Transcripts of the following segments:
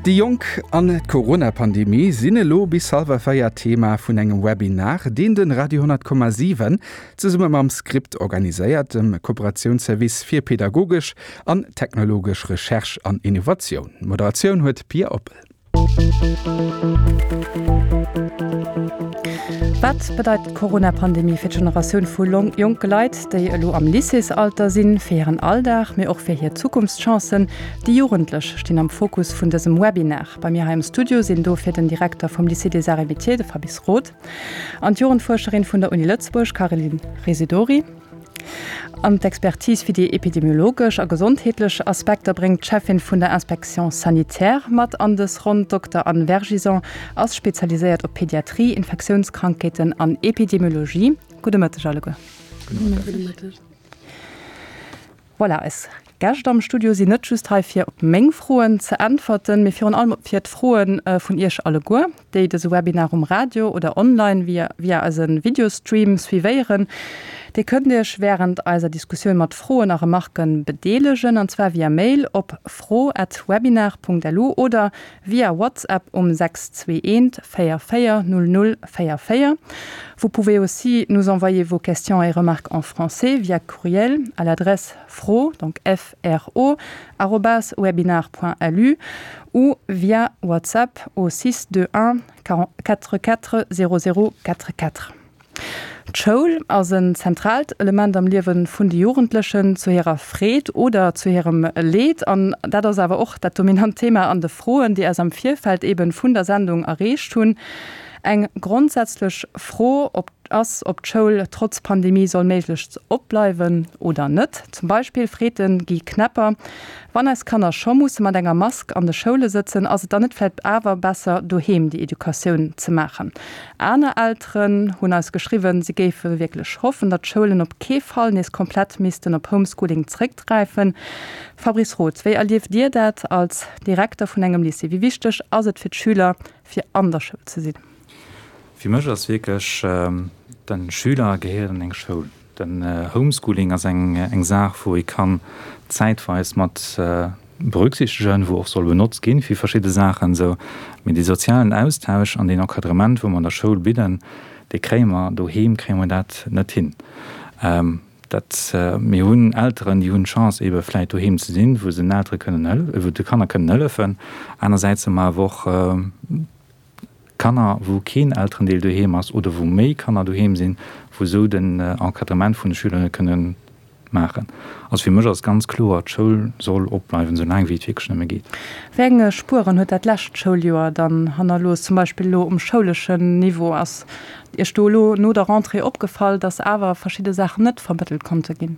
Déi Jonk an d'Corona-Pandemie sinn elo bis hallwer 4 Thema vun engem Webinar, deen de Radio 10,7 zesumme mam Script organiséiert, dem Kooperatiounsservice fir pedagogesch an technologesch Recherche an Innovatioun. D'Moderatioun huet d'Pia Oppel. Wat bedeit d'Corona-Pandemie fir d'Generatioun vu jonke Leit, déi elo am Lycéesalter sinn, fir hiren Alldag, mee och fir hir Zukunftschancen? Déi Jugendlech stinn am Fokus vun dësem Webinar. Bei mir hei am Studio sinn dofir den Direkter vum Lycée des Arts et Métiers, de Fabrice Roth, an d'Jugendfuerscherin vun der Uni Lëtzebuerg, Caroline Residori. An d'Expertise fir déi epidemiologesch a gesondheetlech Aspekter bréngt d'Cheffin vun der Inspection sanitaire mat an dës Ronn. D'Dokter Anne Vergison ass spezialiséiert op Pediatrie, Infektiounskrankheeten an Epidemiologie. Gudde Mëtteg alleguer. Gudde Mëtteg. Voilà, eis Gäscht am Studio sinn net just hei fir op meng Froen ze äntwerten, mee virun allem fir d'Froe vun Iech alleguer, déi dëse Webinar um Radio oder online via via eise Videostream suivéieren. Dir kënnt Iech wärend eiser Diskussioun mat Froen a Remarke bedeelegen, an zwar via Mail op fro@webinar.lu oder via WhatsApp um 621 44 00 44. Vous pouvez aussi nous envoyer vos questions et remarques en français via courriel à l'adresse fro donc fro arobase webinar.lu ou via WhatsApp au 621 44 00 44. D'Schoul ass en zentraalt Element am Liewe vun de Jugendlechen, zu hirer Freed oder zu hirem Leed. An dat ass awer och dat dominant Thema an de Froen, déi eis am Virfeld eben vun der Sendung erreecht hunn. Eng grondsätzlech Fro ob ass, ob d'Schoul trotz Pandemie soll méiglechst opbleiwen oder net. Zum Beispill freet de Guy Knepper, Wann eis Kanner scho musse mat enger Mask an de Schoule sëtzen, ass et dann net vläicht awer besser, doheem déi Educatioun ze maachen? Aner Elteren hunn eis geschriwwen, si géife wierklech hoffen, datt d'Schoulen op kee Fall nees komplett missten op Homeschooling zréckgräifen. Fabrice Roth, wéi erlieft Dir dat als Direkter vun engem Lycée? Wéi wichteg ass et fir d'Schüler, fir an der Schoul ze sinn? Fir mech ass wierklech, de Schüler gehéiert an eng Schoul. Den Homeschooling ass eng Saach, wou ee kann zäitweis mat berücksichtegen, wou och soll benotzt ginn fir verschidde Saachen esou. Mee dee sozialen Austausch an deen Encadrement, wou mer an der Schoul bidden, dee kréie mer doheem kréie mer dat net hin. Dat, mir hunn Elteren, déi hunn d'Chance eebe vläit doheem ze sinn, wou se den Eltere kënnen hël-, wou de Kanner kënnen hëllefen. Anersäits hu mer awer och Kanner, wou keen Elterendeel doheem ass oder wou méi Kanner doheem sinn, wou esou den Encadrement vun de Schüler net kënne maachen. Also fir mech ass ganz kloer, d'Schoul soll opbleiwen, esou laang wéi et wierklech nëmme geet. Wéi eng Spueren huet dat lescht Schouljoer dann hannerlooss, zum Beispill elo um schouleschen Niveau? Ass Iech do elo no der Rentrée opgefall, datt awer verschidde Saachen net vermëttelt konnte ginn?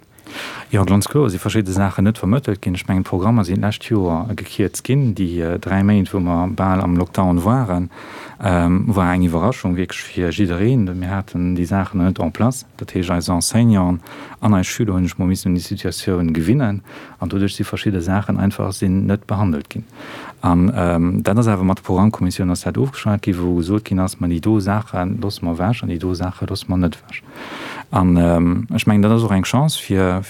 Jo, ganz kloer si verschidde Saachen net vermëttelt ginn. Ech mengen, d'Programmer sinn d'lescht Joer gekierzt ginn. Déi 3 Méint, wou mer bal am Lockdown waren, war eng Iwwerraschung wierklech fir jiddereen. Mir haten déi Saachen nach net en place. Dat heescht, eis Enseignanten an eis Schüler hunn sech mol missen un déi Situatioun gewinnen an doduerch si verschidde Saachen einfach sinn net behandelt ginn. An dat ass awer mat der Programmkommissioun ass dat ofgeschwat ginn, wou gesot ginn ass, ma déi do Saache loosse mer ewech an déi do Saache loosse mer net ewech. An ech mengen, dat ass och eng Chance fir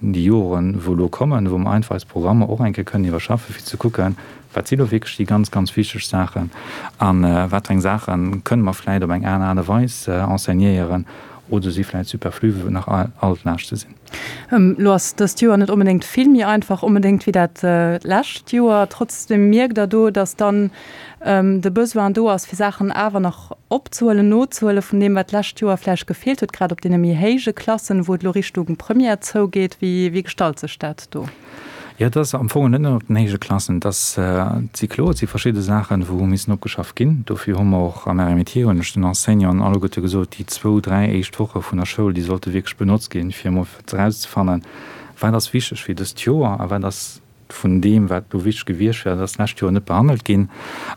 déi Joren, wou elo kommen, wou mer einfach eis Programmer och eng Kéier kënnen iwwerschaffen, fir ze kucken, wat si lo wierklech déi ganz, ganz wichteg Saachen a wat fir eng Saache kënnen mer vläicht op eng aner Aart a Weis enseignéieren oder si vläicht superflu, wou nach Altlaaschte sinn. Elo ass dëst Joer net onbedéngt vill méi einfach onbedéngt wéi dat lescht Joer. Trotzdem mierkt Der do, datt dann de Besoin do ass, fir Saachen awer nach opzehuelen, nozehuelen vun deem, wat d'lescht Joer vläicht gefeelt huet, grad op deene méi héije Klassen, wou et elo Richtung Première zougeet. Wéi wéi gestalt sech dat do? Jo, et ass am Fong net nëmmen op den héije Klassen. Et ass, et si kloer, et si verschidde Saachen, wou hu missen opgeschafft ginn. Dofir hu mer och am RMIT, hunn ech den Enseignanten alleguerte gesot, déi zwou, dräi éischt Woche vun der Schoul, déi sollte wierklech benotzt ginn, fir emol erauszefannen, wat ass wichteg fir dëst Joer a wat ass vun deem, wat elo wichteg gewiescht wär, dat ass d'lescht Joer net behandelt ginn.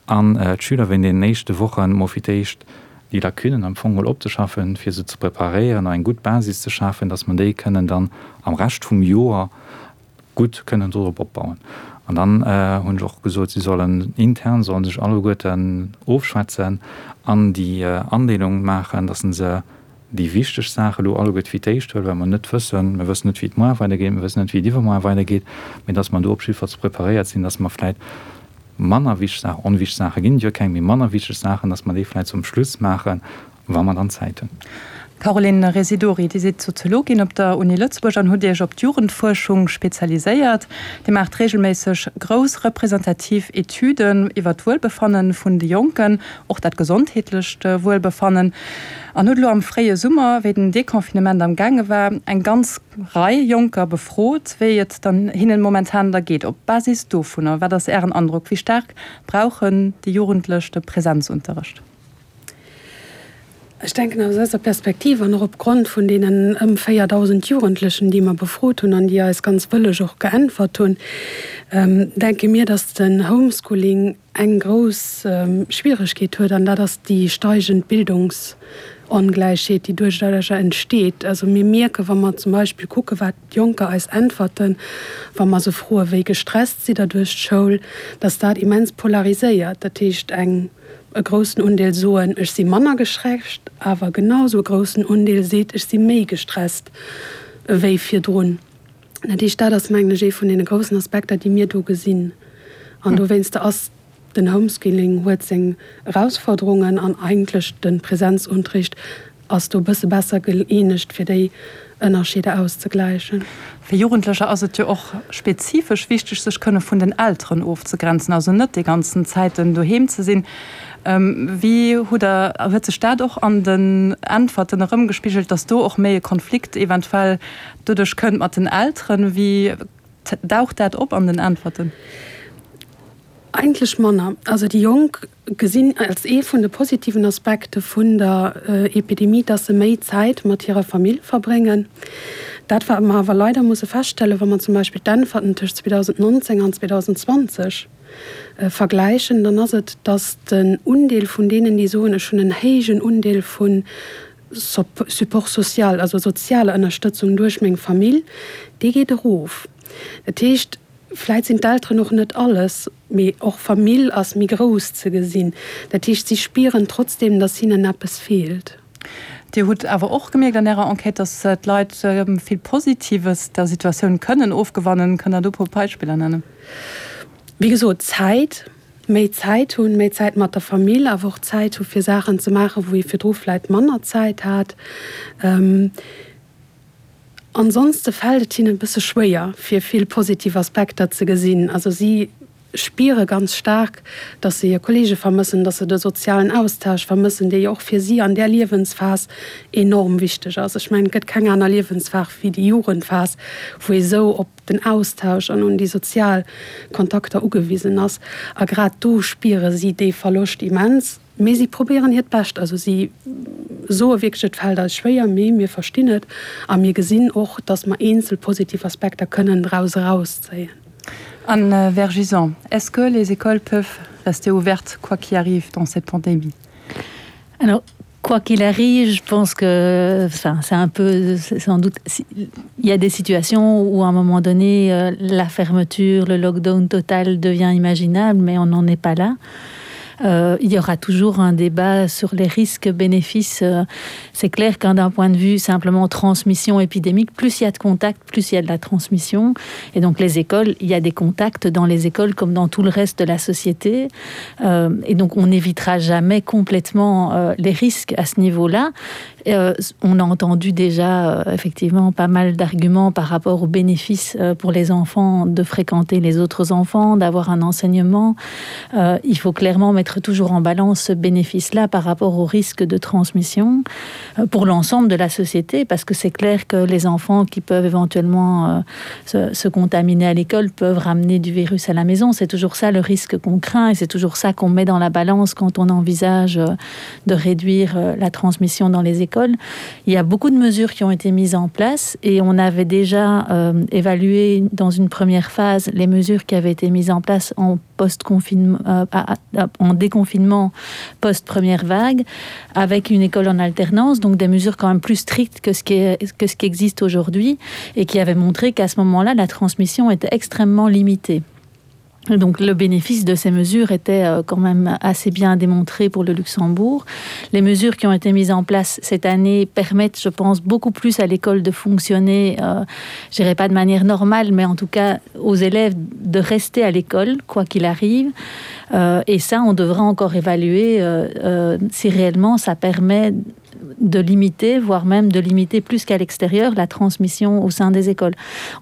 An d'Schüler wéinst deenen éischte Wochen emol fir d'éischt déi Lacunen am Fong mol opzeschaffen, fir se ze preparéieren a eng gutt Basis ze schafen, dass mer déi kënnen dann am Rescht vum Joer gutt kënnen dorop opbauen. An dann hunn ech och gesot, si sollen intern, solle sech alleguerten ofschwätzen an déi Andeelung maachen, dass se déi wichteg Saache elo alleguerte fir d'éischt huelen, well mer net wëssen, mir wëssen net, wéi et muar weidergeet, mir wëssen net, wéi et iwwermuar weidergeet, mee dass mer do op jiddefalls preparéiert sinn, dass mer vläicht. manner wichteg Saachen, onwichteg Saache ginn et jo keng, mee manner wichteg Saachen, dass mer déi vläicht zum Schluss maachen, wa mer dann Zäit hunn. Caroline Residori, Dir sidd Soziologin op der Uni Lëtzebuerg an hutt Iech op d'Jugendfuerschung spezialiséiert. Dir maacht reegelméisseg grouss representativ Etüden iwwer d'Wuelbefanne vun de Jonken, och dat gesondheetlecht Wuelbefannen, an hutt elo am fréie Summer, wéi den Deconfinement am gaange war, eng ganz Rei Jonker befrot, wéi et dann hinnen momentan da geet. Op Basis dovunner, wat ass Ären Androck, wéi staark brauchen déi Jugendlech de Präsenzunterrecht? Ech denken aus eiser Perspektiv an och opgrond vun deenen ëm 4.000 Jugendlechen, déi mer befrot hunn an déi eis ganz wëlleg och geäntwert hunn, denke mir, dass den Homeschooling eng grouss Schwieregkeet huet, an dat ass déi steigend Bildungsongläichheet, déi duerchduercher entsteet. Also mir mierken, wa mer zum Beispill kucken, wat d'Jonker eis äntwerten, wa mer se froen, wéi gestresst sidd Der duerch d'Schoul, dass dat immens polariséiert. Dat heescht, eng. E groussen Undeel soen, ech si manner gestresst, awer genau sou e groussen Undeel seet, ech si méi gestresst ewéi virdrun. Dat heescht, dat ass, mengen ech, ee vun deene groussen Aspekter, déi mir do gesinn. An dowéinster ass den Homeschooling huet seng Erausforderungen an eigentlech de Präsenzunterricht ass do e bësse besser gëeenegt, fir déi Ënnerscheeder auszegläichen. Fir Jugendlecher ass et jo och spezifesch wichteg, sech kënne vun den Elteren ofzegrenzen, also net déi ganzen Zäiten doheem ze sinn. Wéi hutt Der, huet sech dat och an den Äntwerten erëmgespigelt, datt do och méi e Konflikt eventuell doduerch kënnt mat den Elteren? Wéi daucht dat op an den Äntwerten? Eigentlech manner. Also déi Jonk gesinn als ee vun de positiven Aspekte vun der Epidemie, dass se méi Zäit mat hirer Famill verbréngen. Dat wat mer awer leider musse feststellen, wa mer zum Beispill d'Äntwerten tëscht 2019 an 2020 vergläichen, dann ass et, dass den Undeel vun deenen, déi soen, ech hunn en héijen Undeel vu Support social, also sozialer Ënnerstëtzung duerch meng Famill, dee geet erof. Dat heescht, Vläit sinn d'Elteren och net alles, mee och Famill ass méi grouss ze gesinn. Dat heescht, si spieren trotzdeem, datt hinnen eppes feelt. Dir hutt awer och gemierkt an Ärer Enquête, datt d'Leit vill Positives der Situatioun kënnen ofgewannen. Kënnt Der do e puer Beispiller nennen? Wéi gesot, Zäit, méi Zäit hunn, méi Zäit mat der Famill, awer och Zäit hu fir Saachen ze maachen, wou ee virdru vläit manner Zäit hat. Ansonste fält et hinnen e bësse schwéier, fir vill positiv Aspekter ze gesinn. Also si spiere ganz staark, dass se hir Kollege vermëssen, dass se de sozialen Austausch vermëssen, dee jo och fir si an där Liewensphas enorm wichteg ass. Ech mengen, et gëtt keng aner Liewensphas wéi déi Jugendphas, wou ee sou op den Austausch an un déi sozial Kontakter ugewisen ass. A grad do spiere si dee Verloscht immens. Mee si probéieren hiert Bescht. Also si soe wierklech, et fält eis schwéier, mee mir verstinn et a mir gesinn och, datt mer eenzel positiv Aspekter kënnen draus erauszéien. Anne Vergison, Est-ce que les écoles peuvent rester ouvertes quoi qu'il arrive dans cette pandémie? Alors, quoi qu'il arrive, je pense que enfin, c'est un peu sans doute il y a des situations où à un moment donné euh, la fermeture, le lockdown total devient imaginable, mais on n'en est pas là. Euh, il y aura toujours un débat sur les risques bénéfices. Euh, c'est clair qu'un d'un point de vue simplement transmission épidémique, plus il y a de contacts, plus il y a de la transmission. Et donc les écoles, il y a des contacts dans les écoles comme dans tout le reste de la société. Euh, et donc on n'évitera jamais complètement euh, les risques à ce niveau-là. Euh, on a entendu déjà euh, effectivement pas mal d'arguments par rapport aux bénéfices euh, pour les enfants de fréquenter les autres enfants, d'avoir un enseignement. Euh, il faut clairement mettre toujours en balance ce bénéfice-là par rapport au risque de transmission euh, pour l'ensemble de la société, parce que c'est clair que les enfants qui peuvent éventuellement euh, se, se contaminer à l'école peuvent ramener du virus à la maison. C'est toujours ça le risque qu'on craint et c'est toujours ça qu'on met dans la balance quand on envisage euh, de réduire euh, la transmission dans les écoles. Il y a beaucoup de mesures qui ont été mises en place et on avait déjà euh, évalué dans une première phase les mesures qui avaient été mises en place en post-confinement euh, en déconfinement post première vague avec une école en alternance donc des mesures quand même plus strictes que ce qui est, que ce qui existe aujourd'hui et qui avait montré qu'à ce moment là la transmission était extrêmement limitée. Donc le bénéfice de ces mesures était euh, quand même assez bien démontré pour le Luxembourg. Les mesures qui ont été mises en place cette année permettent, je pense, beaucoup plus à l'école de fonctionner, euh, je dirais pas de manière normale, mais en tout cas aux élèves de rester à l'école, quoi qu'il arrive. Euh, et ça, on devra encore évaluer euh, euh, si réellement ça permet de de limiter, voire même de limiter plus qu'à l'extérieur la transmission au sein des écoles.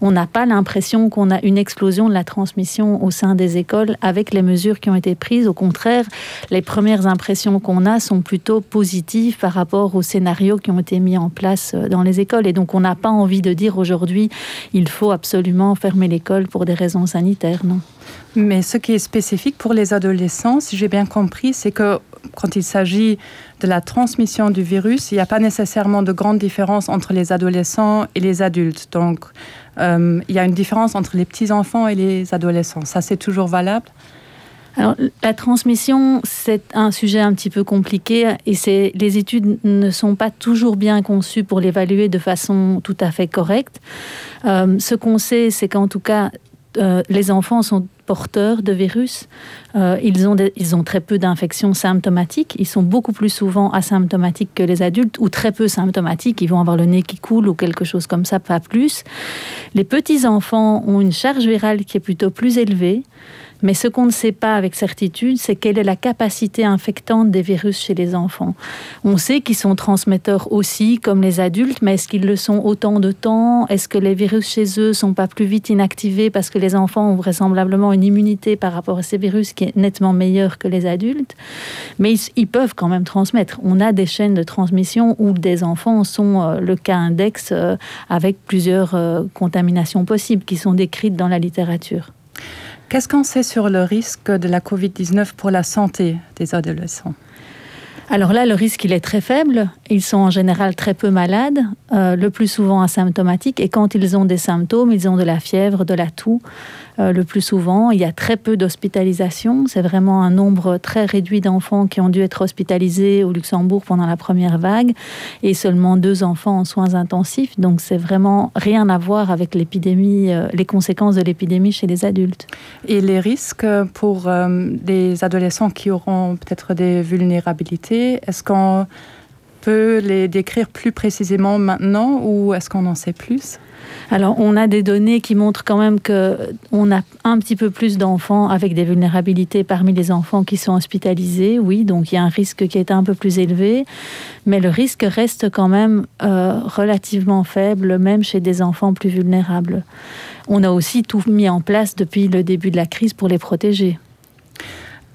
On n'a pas l'impression qu'on a une explosion de la transmission au sein des écoles avec les mesures qui ont été prises. Au contraire, les premières impressions qu'on a sont plutôt positives par rapport aux scénarios qui ont été mis en place euh, dans les écoles. Et donc on n'a pas envie de dire aujourd'hui il faut absolument fermer l'école pour des raisons sanitaires non. Mais ce qui est spécifique pour les adolescents, si j'ai bien compris, c'est que quand il s'agit de la transmission du virus, il n'y a pas nécessairement de grande différence entre les adolescents et les adultes. Donc euh, il y a une différence entre les petits enfants et les adolescents. Ça c'est toujours valable. Alors, la transmission, c'est un sujet un petit peu compliqué et les études ne sont pas toujours bien conçues pour l'évaluer de façon tout à fait correcte. Euh, ce qu'on sait, c'est qu'en tout cas, euh, les enfants sont porteurs de virus. Euh, ils, ont des, ils ont très peu d'infections symptomatiques. Ils sont beaucoup plus souvent asymptomatiques que les adultes ou très peu symptomatiques. Ils vont avoir le nez qui coule ou quelque chose comme ça, pas plus. Les petits enfants ont une charge virale qui est plutôt plus élevée. Mais ce qu'on ne sait pas avec certitude, c'est quelle est la capacité infectante des virus chez les enfants. On sait qu'ils sont transmetteurs aussi, comme les adultes, mais est-ce qu'ils le sont autant de temps Est-ce que les virus chez eux sont pas plus vite inactivés parce que les enfants ont vraisemblablement une immunité par rapport à ces virus qui est nettement meilleure que les adultes Mais ils, ils peuvent quand même transmettre. On a des chaînes de transmission où des enfants sont euh, le cas index euh, avec plusieurs euh, contaminations possibles qui sont décrites dans la littérature. Qu'est-ce qu'on sait sur le risque de la COVID-19 pour la santé des adolescents Alors là, le risque il est très faible. Ils sont en général très peu malades, euh, le plus souvent asymptomatiques et quand ils ont des symptômes, ils ont de la fièvre, de la toux. Euh, le plus souvent, il y a très peu d'hospitalisation. C'est vraiment un nombre très réduit d'enfants qui ont dû être hospitalisés au Luxembourg pendant la première vague et seulement deux enfants en soins intensifs. Donc c'est vraiment rien à voir avec l'épidémie, euh, les conséquences de l'épidémie chez les adultes. Et les risques pour euh, des adolescents qui auront peut-être des vulnérabilités, est-ce qu'on peut les décrire plus précisément maintenant ou est-ce qu'on en sait plus? Alors on a des données qui montrent quand même que on a un petit peu plus d'enfants avec des vulnérabilités parmi les enfants qui sont hospitalisés. Oui, donc il y a un risque qui est un peu plus élevé, mais le risque reste quand même euh, relativement faible, même chez des enfants plus vulnérables. On a aussi tout mis en place depuis le début de la crise pour les protéger.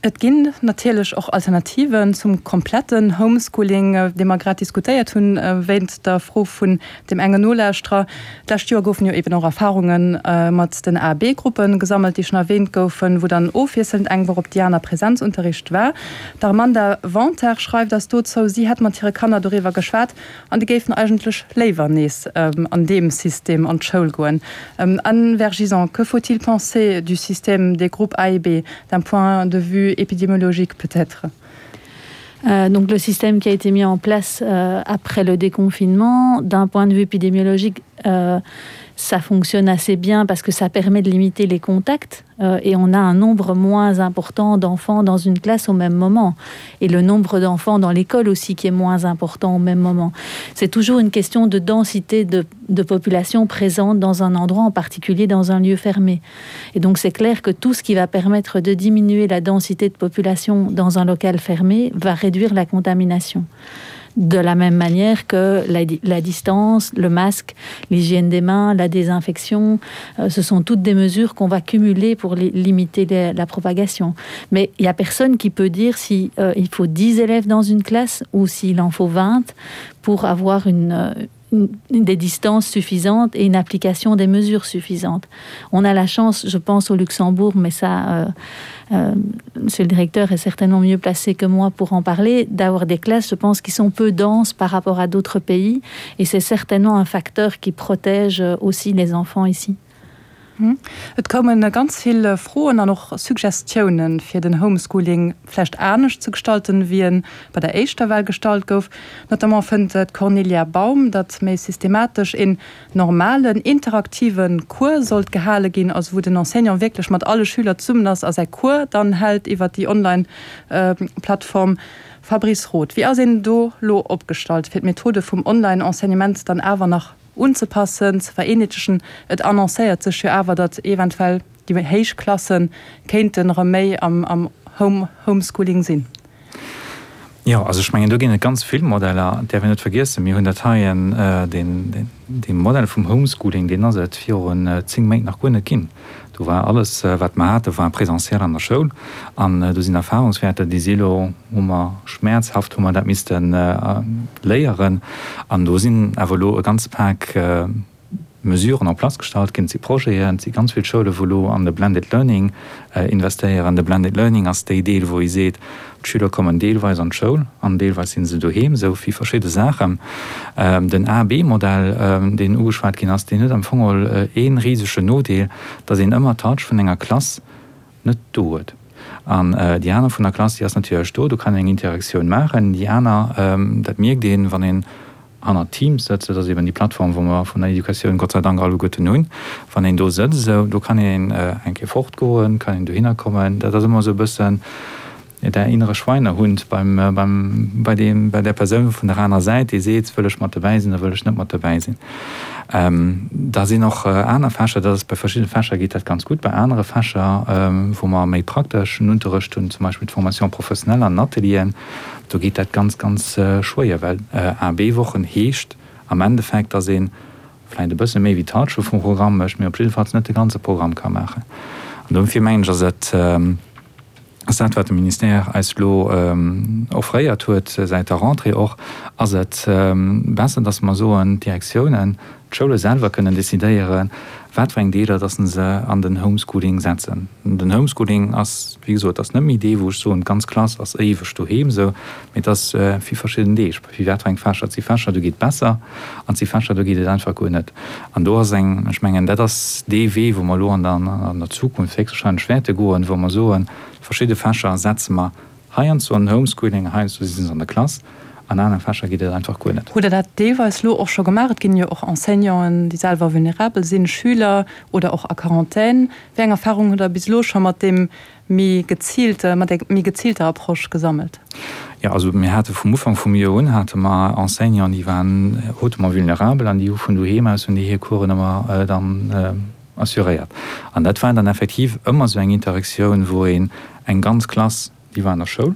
Et ginn natierlech och Alternativen zum kompletten Homeschooling, dee mer grad diskutéiert hunn, wéint der Fro vun deem engen Nolauschterer. D'lescht Joer goufen jo eben och Erfarunge mat den A B-Gruppe gesammelt, déi schonn erwähnt goufen, wou dann ofwiesselnd eng Woch op déi aner Präsenzunterricht war. D'Armanda Wanter schreift eis dozou, si hätt mat hire Kanner doriwwer geschwat an déi géifen eigentlech léiwer nees an deem System an d'Schoul goen. Anne Vergison, que faut-il penser du système des groupes A et B, d'un point de vue épidémiologique peut-être? Euh, donc le système qui a été mis en place euh, après le déconfinement, d'un point de vue épidémiologique, euh, ça fonctionne assez bien parce que ça permet de limiter les contacts euh, et on a un nombre moins important d'enfants dans une classe au même moment et le nombre d'enfants dans l'école aussi qui est moins important au même moment. C'est toujours une question de densité de, de population présente dans un endroit en particulier dans un lieu fermé. Et donc c'est clair que tout ce qui va permettre de diminuer la densité de population dans un local fermé va réduire la contamination de la même manière que la, la distance, le masque, l'hygiène des mains, la désinfection, euh, ce sont toutes des mesures qu'on va cumuler pour li limiter les, la propagation. Mais il n'y a personne qui peut dire si euh, il faut 10 élèves dans une classe ou s'il en faut 20 pour avoir une, euh, une, des distances suffisantes et une application des mesures suffisantes. On a la chance, je pense au Luxembourg, mais ça euh, euh, monsieur le directeur est certainement mieux placé que moi pour en parler, d'avoir des classes, je pense, qui sont peu denses par rapport à d'autres pays et c'est certainement un facteur qui protège aussi les enfants ici. Et koume ganz vill Froen an och Suggestiounen, fir den Homeschooling vläicht anescht ze gestalten, wéi e bei der éischter Well gestalt gouf. Notamment fënnt d'Cornelia Baum, datt méi systematesch een normalen, interaktive Cours sollt gehale ginn, also wou den Enseignant wierklech mat alle Schüler zesummen ass a säi Cours dann hält iwwer déi Online-Plattform. Fabrice Roth, Wéi ass een do lo opgestallt, fir d'Methode vum Online-Enseignement dann awer nach unzepassen, ze vereenheetlechen? Et annoncéiert sech jo awer, datt eventuell déi héich Klasse kéinten erëm méi am Homeschooling sinn. Jo, also ech mengen, do ginn et ganz vill Modeller. Et däerf een net vergiessen, mir hunn dat heien, deen, dee Modell vum Homeschooling, deen ass et virun 10 Méint nach guer net ginn. Do war alles, wat mer haten, war présentiel an der Schoul. An do sinn Erfahrungswäerter, déi si elo, hu mer schmäerzhaft hu mer dat misste léieren. An do sinn awer elo e ganze Pak Mesuren en place gestallt ginn. Et si Projeten, et si ganz vill Schoulen, wou elo an de Blended Learning investéieren. De Blended Learning ass déi Deel, wou ee seet, d'Schüler kommen deelweis an d'Schoul an deelweis si se doheem, esou vill verschidde Saachen. Den A-B-Modell, deen ugeschwat ginn ass, deen huet am Fong geholl ee risegen Nodeel, datt een ëmmer d'Halschent vun enger Klass net do huet. An déi aner vun der Klass, déi ass natierlech do, do kann een eng Interaktioun maachen. Déi aner, dat mierkt een, wann een hannert Teams sëtzt, dat ass eben déi Plattform, wou mer vun der Educatioun Gott sei Dank alleguerten hunn, wann een do sëtzt, esou, do kann een eng Kéier fortgoen, kann een dohinner kommen. Dat ass ëmmer esou e bëssen der innere Schweinehund beim, beim, bei deem, bei där Persoun vun der aner Säit, déi seet, wëll ech mat dobäi sinn oder wëll ech net mat dobäi sinn. Da sinn och aner Fächer, dat ass bei verschiddene Fächer geet dat ganz gutt, bei anere Fächer, wou mer méi prakteschen Unterrecht hunn, zum Beispill d'Formation professionnelle an den Atelieren, Do geet dat ganz, ganz schwéier, well A-B-Wochen heescht am Endeffekt, dass ee vläicht e bësse méi wéi d'Halschent vum Programm mécht, mee op jiddefalls net de ganze Programm ka maachen. An dofir mengen ech, ass et, ass dat, wat de Ministère eis elo offréiert huet säit der Rentrée och, ass et besser, dass mer soen, d'Direktiounen, D'Schoule selwer kënnen decidéieren, wat fir eng Deeler dass se an den Homeschooling setzen. Den Homeschooling ass, wéi gesot, ass net méi dee wou ech soen, d'ganz Klass ass éiweg doheem esou, mee et ass fir verschidden Deeg, fir wat fir eng Fächer. Et si Fächer, do geet et besser an et si Fächer, do geet et einfach guer net. An do ass eng, ech mengen, dat ass dee Wee, wou mer elo an der an der Zukunft héchstwahrscheinlech wäerte goen, wou mer soen, verschidde Fächer setze mer Heiansdo an Homeschooling, heiansdo si se an der Klass, an anere Fächer geet et einfach guer net. Hutt Der dat deelweis elo och scho gemaach? Et ginn jo och Enseignanten, déi selwer vulnerabel sinn, Schüler oder och a Quarantän. Wéi eng Erfarung hutt Der bis elo scho mat deem méi geziilte, mat där méi geziilter Approche gesammelt? Jo, also mir hate vum Ufank vum Joer un hate mer Enseignanten, déi waren hautement vulnerabel an déi hu vun doheem aus hunn déi hir Coursen ëmmer dann assuréiert. An dat war dann effektiv ëmmer esou eng Interaktioun, wou een eng ganz Klass, déi war an der Schoul,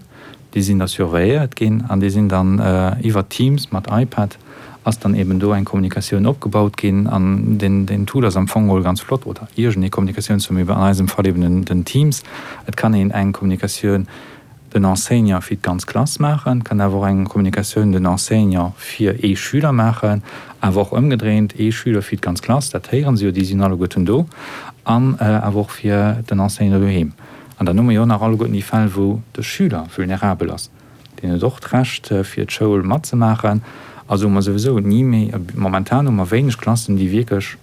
déi sinn da surveilléiert ginn an déi sinn dann iwwer Teams mat iPad ass dann eben do eng Kommunikatioun opgebaut ginn. An deen, deen Tool ass am Fong geholl ganz flott, oder iergendee Kommunikatiounstool, mee an eisem Fall eben den, den Teams. Et kann een eng Kommunikatioun den Enseignant fir d'ganz Klass maachen, kann awer och eng Kommunikatioun den Enseignant fir ee Schüler maachen, awer och ëmgedréint, ee Schüler fir d'ganz Klass, dat héieren se jo, déi sinn alleguerten do, an awer och fir den Enseignant doheem. An dann hu mer jo nach alleguerten déi Fäll, wou de Schüler vulnerabel ass, deen huet och d'Recht fir d'Schoul matzemaachen. Also hu mer souwisou ni méi, momentan hu mer wéineg Klassen, déi wierklech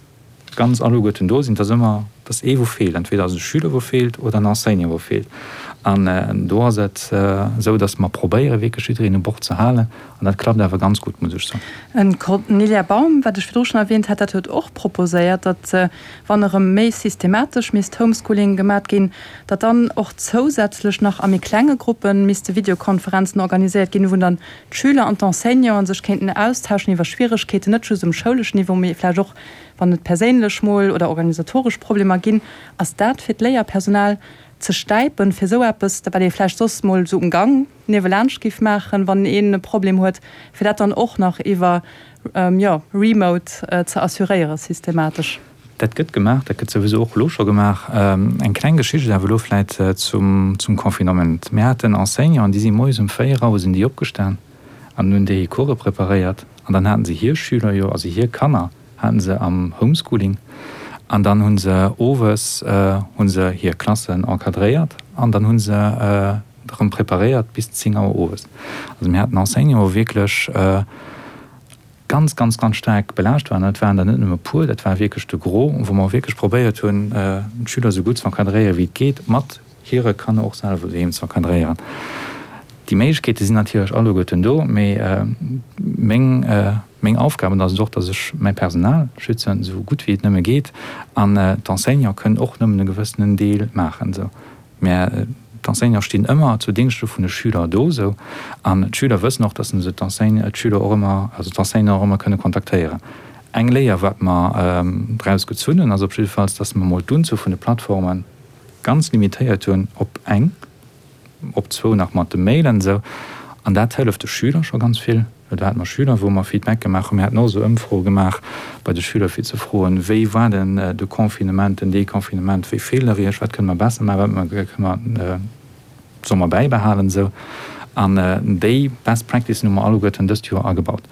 ganz alleguerten do sinn, et ass ëmmer, et ass ee wou feelt, entweder ass et e Schüler wou feelt oder en Enseignant wou feelt. An do ass et esou, datt mer probéiere wierklech jiddereen u Bord ze halen an dat klappt awer ganz gutt, muss ech soen. D'Cornelia Baum, wat ech virdru schonn erwähnt hat, dat huet och proposéiert, datt wann erëm méi systematesch misst Homeschooling gemat ginn, datt dann och zousätzlech nach a méi klenge Gruppe misste Videokonferenzen organiséiert ginn, wou dann d'Schüler an d'Enseignanten sech kéinten austauschen iwwer Schwieregkeeten, net just um schouleschen Niveau, mee vläicht och wann et perséinlech mol oder organisatoresch Problemer ginn. Ass dat fir d'Léierpersonal ze stäipen, fir esou eppes, wat ee vläicht soss mol esou um Gang niewelaanscht géif maachen, wann een e Problem huet, fir dat dann och nach iwwer, jo, remote ze assuréieren systematesch? Dat gëtt gemaach, dat gëtt souwisou och elo scho gemaach. Eng kleng Geschicht awer elo vläit zum Confinement. Mir haten Enseignanten, déi si moies um 4 Auer sinn déi opgestan an hunn déi hir Course preparéiert an dann haten se hir Schüler jo, also hir Kanner haten se am Homeschooling an dann hu se owes hu se hir Klassen encadréiert an dann hu se erëm preparéiert bis 10 Auer owes. Also mir haten Enseignanten, wou wierklech. ganz, ganz, ganz staark belaascht waren. Dat waren der net nëmme e puer, dat war wierklech de Gros, wou mer wierklech probéiert hunn, d'Schüler esou gutt ze encadréieren, wéi et geet, mat hire Kanner och selwer doheem ze encadréieren. Déi Méiglechkeete sinn natierlech alleguerten do, mee meng, meng Aufgab, an dat ass et och, datt ech mäi Personal schützen, esou gutt wéi et nëmme geet, an d'Enseignante kënnen och nëmmen e gewëssenen Deel maachen. Esou. Mä d'Enseignante stinn ëmmer zu Dingschte vun de Schüler do, esou. An d'Schüler wëssen och, datt se d'Enseigne, d'Schüler och ëmmer, also d'Enseignanten och ëmmer kënne kontaktéieren. Eng Léier, wat mer draus gezunn hunn, ass op jiddefalls, datt mer emol d'Unzuel vun de Plattforme ganz limitéiert hunn op eng, op zwou nach mat de Mailen, esou. An dat hëlleft de Schüler scho ganz vill. Well do hate mer Schüler, wou mer Feedback gemaach hunn. Mir haten och esou Ëmfroe gemaach bei de Schüler, fir ze froen, Wéi war denn de Confinement, den Deconfinement? Wéi feelt der Iech? Wat kënne mer besser maachen? Wat kënne mer, solle mer bäibehalen? Esou. An déi Best Practicen hu mer alleguerten dëst Joer agebaut.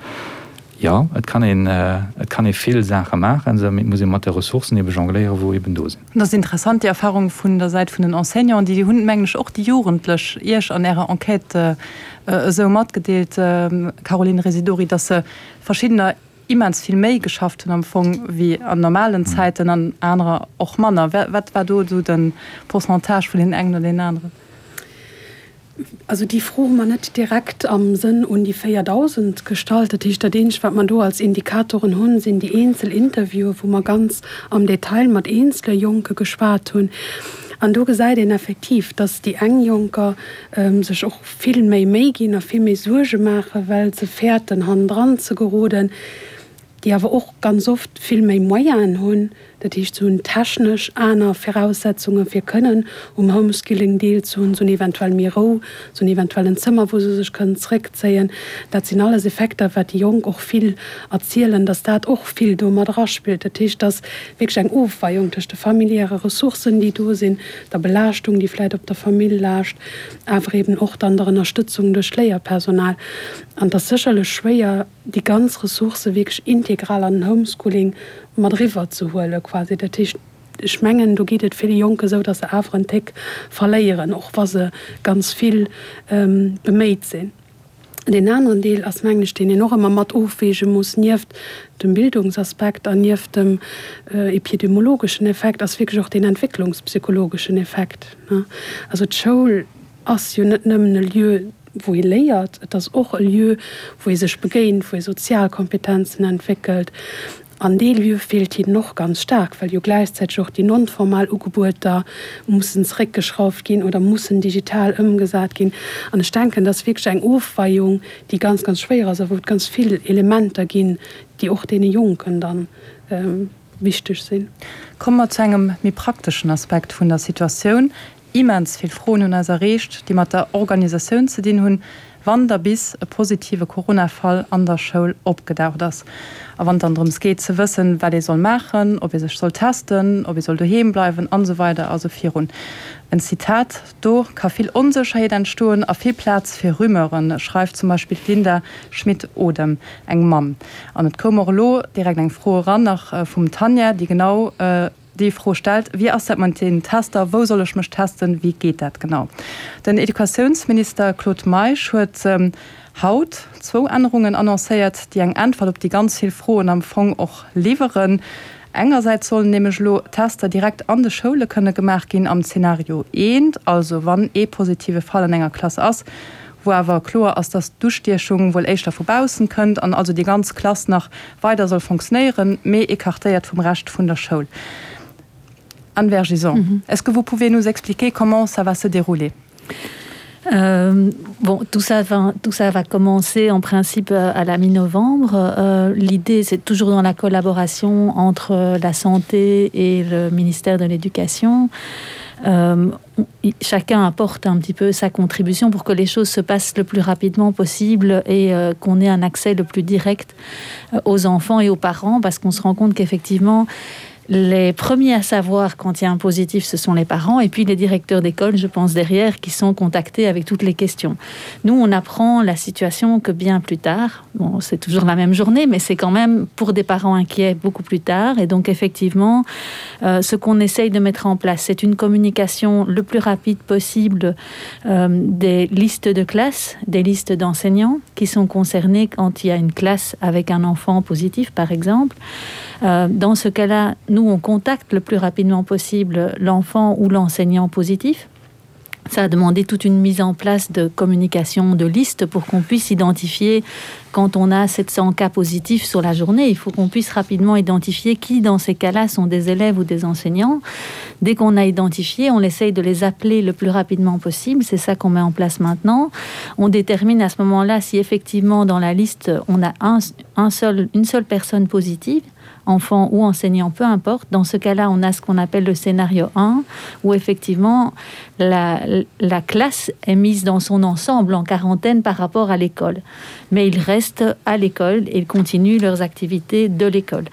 Jo, et kann een, et kann ee vill Saache maachen, esou, mee et muss ee mat de Ressourcen ebe jongléieren, wou eben do sinn. Dat ass interessant, déi Erfahrung vun der Säit vun den Enseignanten. Déi hunn, mengen ech, och déi Jugendlech Iech an Ärer Enquête esou matgedeelt, Caroline Residori, dass se verschiddener immens vill méi geschafft hunn am Fong wéi an normalen Zäiten an anerer och manner. Wat war do esou de Pourcentage vun deenen engen oder deenen aneren? Also déi Fro hu mer net direkt am Sënn un déi 4.000 gestallt. Dat heescht, dat eenzegt, wat mer do als Indikatoren hunn, sinn déi eenzel Interviewen, wou mer ganz am Detail mat eenzele Jonke geschwat hunn. An do gesäit een effektiv, dass déi eng Jonker sech och vill méi Méi ginn a vill méi Suerge maachen, well se fäerten, hannendran ze geroden. déi awer och ganz oft vill méi Moyenen hunn, dat heescht se hunn technesch aner Viraussetzunge fir kënnen um Homeskilling deelzehunn, se hunn eventuell méi Rou, se hunn eventuell en Zëmmer wou se sech kënnen zréckzéien. Dat sinn alles Effekter wat déi Jonk och vill erzielen, datt dat och vill do mat eraspillt. Dat heescht, et ass wierklech eng Ofweiung tëscht de familiäre Ressourcen déi do sinn, der Belaaschtung déi vläicht op der Famill laascht, awer eben och dann der Ënnerstëtzung duerch d'Léierpersonal. An et ass sécherlech schwéier, déi ganz Ressourcë wierklech integral an den Homeschooling mat eriwwer ze huelen quasi. Dat heescht, ech mengen, do geet et ville Jonke esou, datt se awer en Téck verléieren, och wa se ganz vill beméit sinn. Deen aneren Deel ass, mengen ech, deen een och ëmmer mat ofweege muss, nieft dem Bildungsaspekt an nieft dem epidemiologeschen Effekt, ass wierklech och deen entwécklungspsychologeschen Effekt. Also d'Schoul ass jo net nëmmen e Lieu, wou ee léiert, et ass och e Lieu, wou ee sech begéint, wou ee sozial Kompetenzen entwéckelt. An dee Lieu feelt hinnen och ganz staark, well jo gläichzäiteg och déi non-formal Ugebueter mussen zeréckgeschrauft ginn oder mussen digital ëmgesat ginn. An ech denken, dat ass wierklech eng Ofweiung, déi ganz, ganz schwéier ass a wou et ganz vill Elementer ginn, déi och deene Jonken dann wichteg sinn. Komme mer zu engem méi prakteschen Aspekt vun der Situatioun. Immens vill Froen hunn eis erreecht, déi mat der Organisatioun ze dinn hunn, wann da bis e positive Corona-Fall an der Schoul opgedaucht ass. A wann et dann drëms geet ze wëssen, wat ee soll maachen, ob ee sech soll testen, ob ee soll doheem bleiwen an esou weider a sou virun. En Zitat, Do ka vill Onsécherheet entstoen a vill Plaz fir Rumeuren, schreift zum Beispill d'Linda Schmit-Odem, eng Mamm. An et koum och elo direkt eng Fro eran, nach vum Tanja, déi genau déi Fro stellt, Wéi ass dat mat den Tester? Wou soll ech mech testen? Wéi geet dat genau? Den Educatiounsminister Claude Meisch huet haut zwou Ännerungen annoncéiert, déi eng Äntwert op déi ganz vill Froen am Fong och liwweren. Engersäits sollen nämlech elo Tester direkt an de Schoule kënne gemaach ginn am Zenario eent, also wann ee positive Fall an enger Klass ass, wou awer kloer ass, dass d'Ustiechung wuel éischter vu baussen kënnt an also déi ganz Klass nach weider soll fonctionnéieren, mee écartéiert vum Rescht vun der Schoul. Anne Vergison, est-ce que vous pouvez nous expliquer comment ça va se dérouler? Euh, bon, tout ça va, tout ça va commencer en principe euh, à la mi-novembre. Euh, L'idée, c'est toujours dans la collaboration entre euh, la santé et le ministère de l'éducation. Euh, chacun apporte un petit peu sa contribution pour que les choses se passent le plus rapidement possible et euh, qu'on ait un accès le plus direct euh, aux enfants et aux parents parce qu'on se rend compte qu'effectivement, Les premiers à savoir quand il y a un positif, ce sont les parents et puis les directeurs d'école, je pense derrière, qui sont contactés avec toutes les questions. Nous, on apprend la situation que bien plus tard. Bon, c'est toujours la même journée, mais c'est quand même pour des parents inquiets beaucoup plus tard. Et donc effectivement, euh, ce qu'on essaye de mettre en place, c'est une communication le plus rapide possible euh, des listes de classes, des listes d'enseignants qui sont concernés quand il y a une classe avec un enfant positif, par exemple. Euh, dans ce cas-là, nous, on contacte le plus rapidement possible l'enfant ou l'enseignant positif. Ça a demandé toute une mise en place de communication de liste pour qu'on puisse identifier quand on a 700 cas positifs sur la journée, il faut qu'on puisse rapidement identifier qui dans ces cas-là sont des élèves ou des enseignants. Dès qu'on a identifié, on essaye de les appeler le plus rapidement possible. C'est ça qu'on met en place maintenant. On détermine à ce moment-là si effectivement dans la liste on a un, un seul, une seule personne positive enfant ou enseignant, peu importe. Dans ce cas-là, on a ce qu'on appelle le scénario 1, où effectivement la, la classe est mise dans son ensemble en quarantaine par rapport à l'école. Mais ils restent à l'école et ils continuent leurs activités de l'école.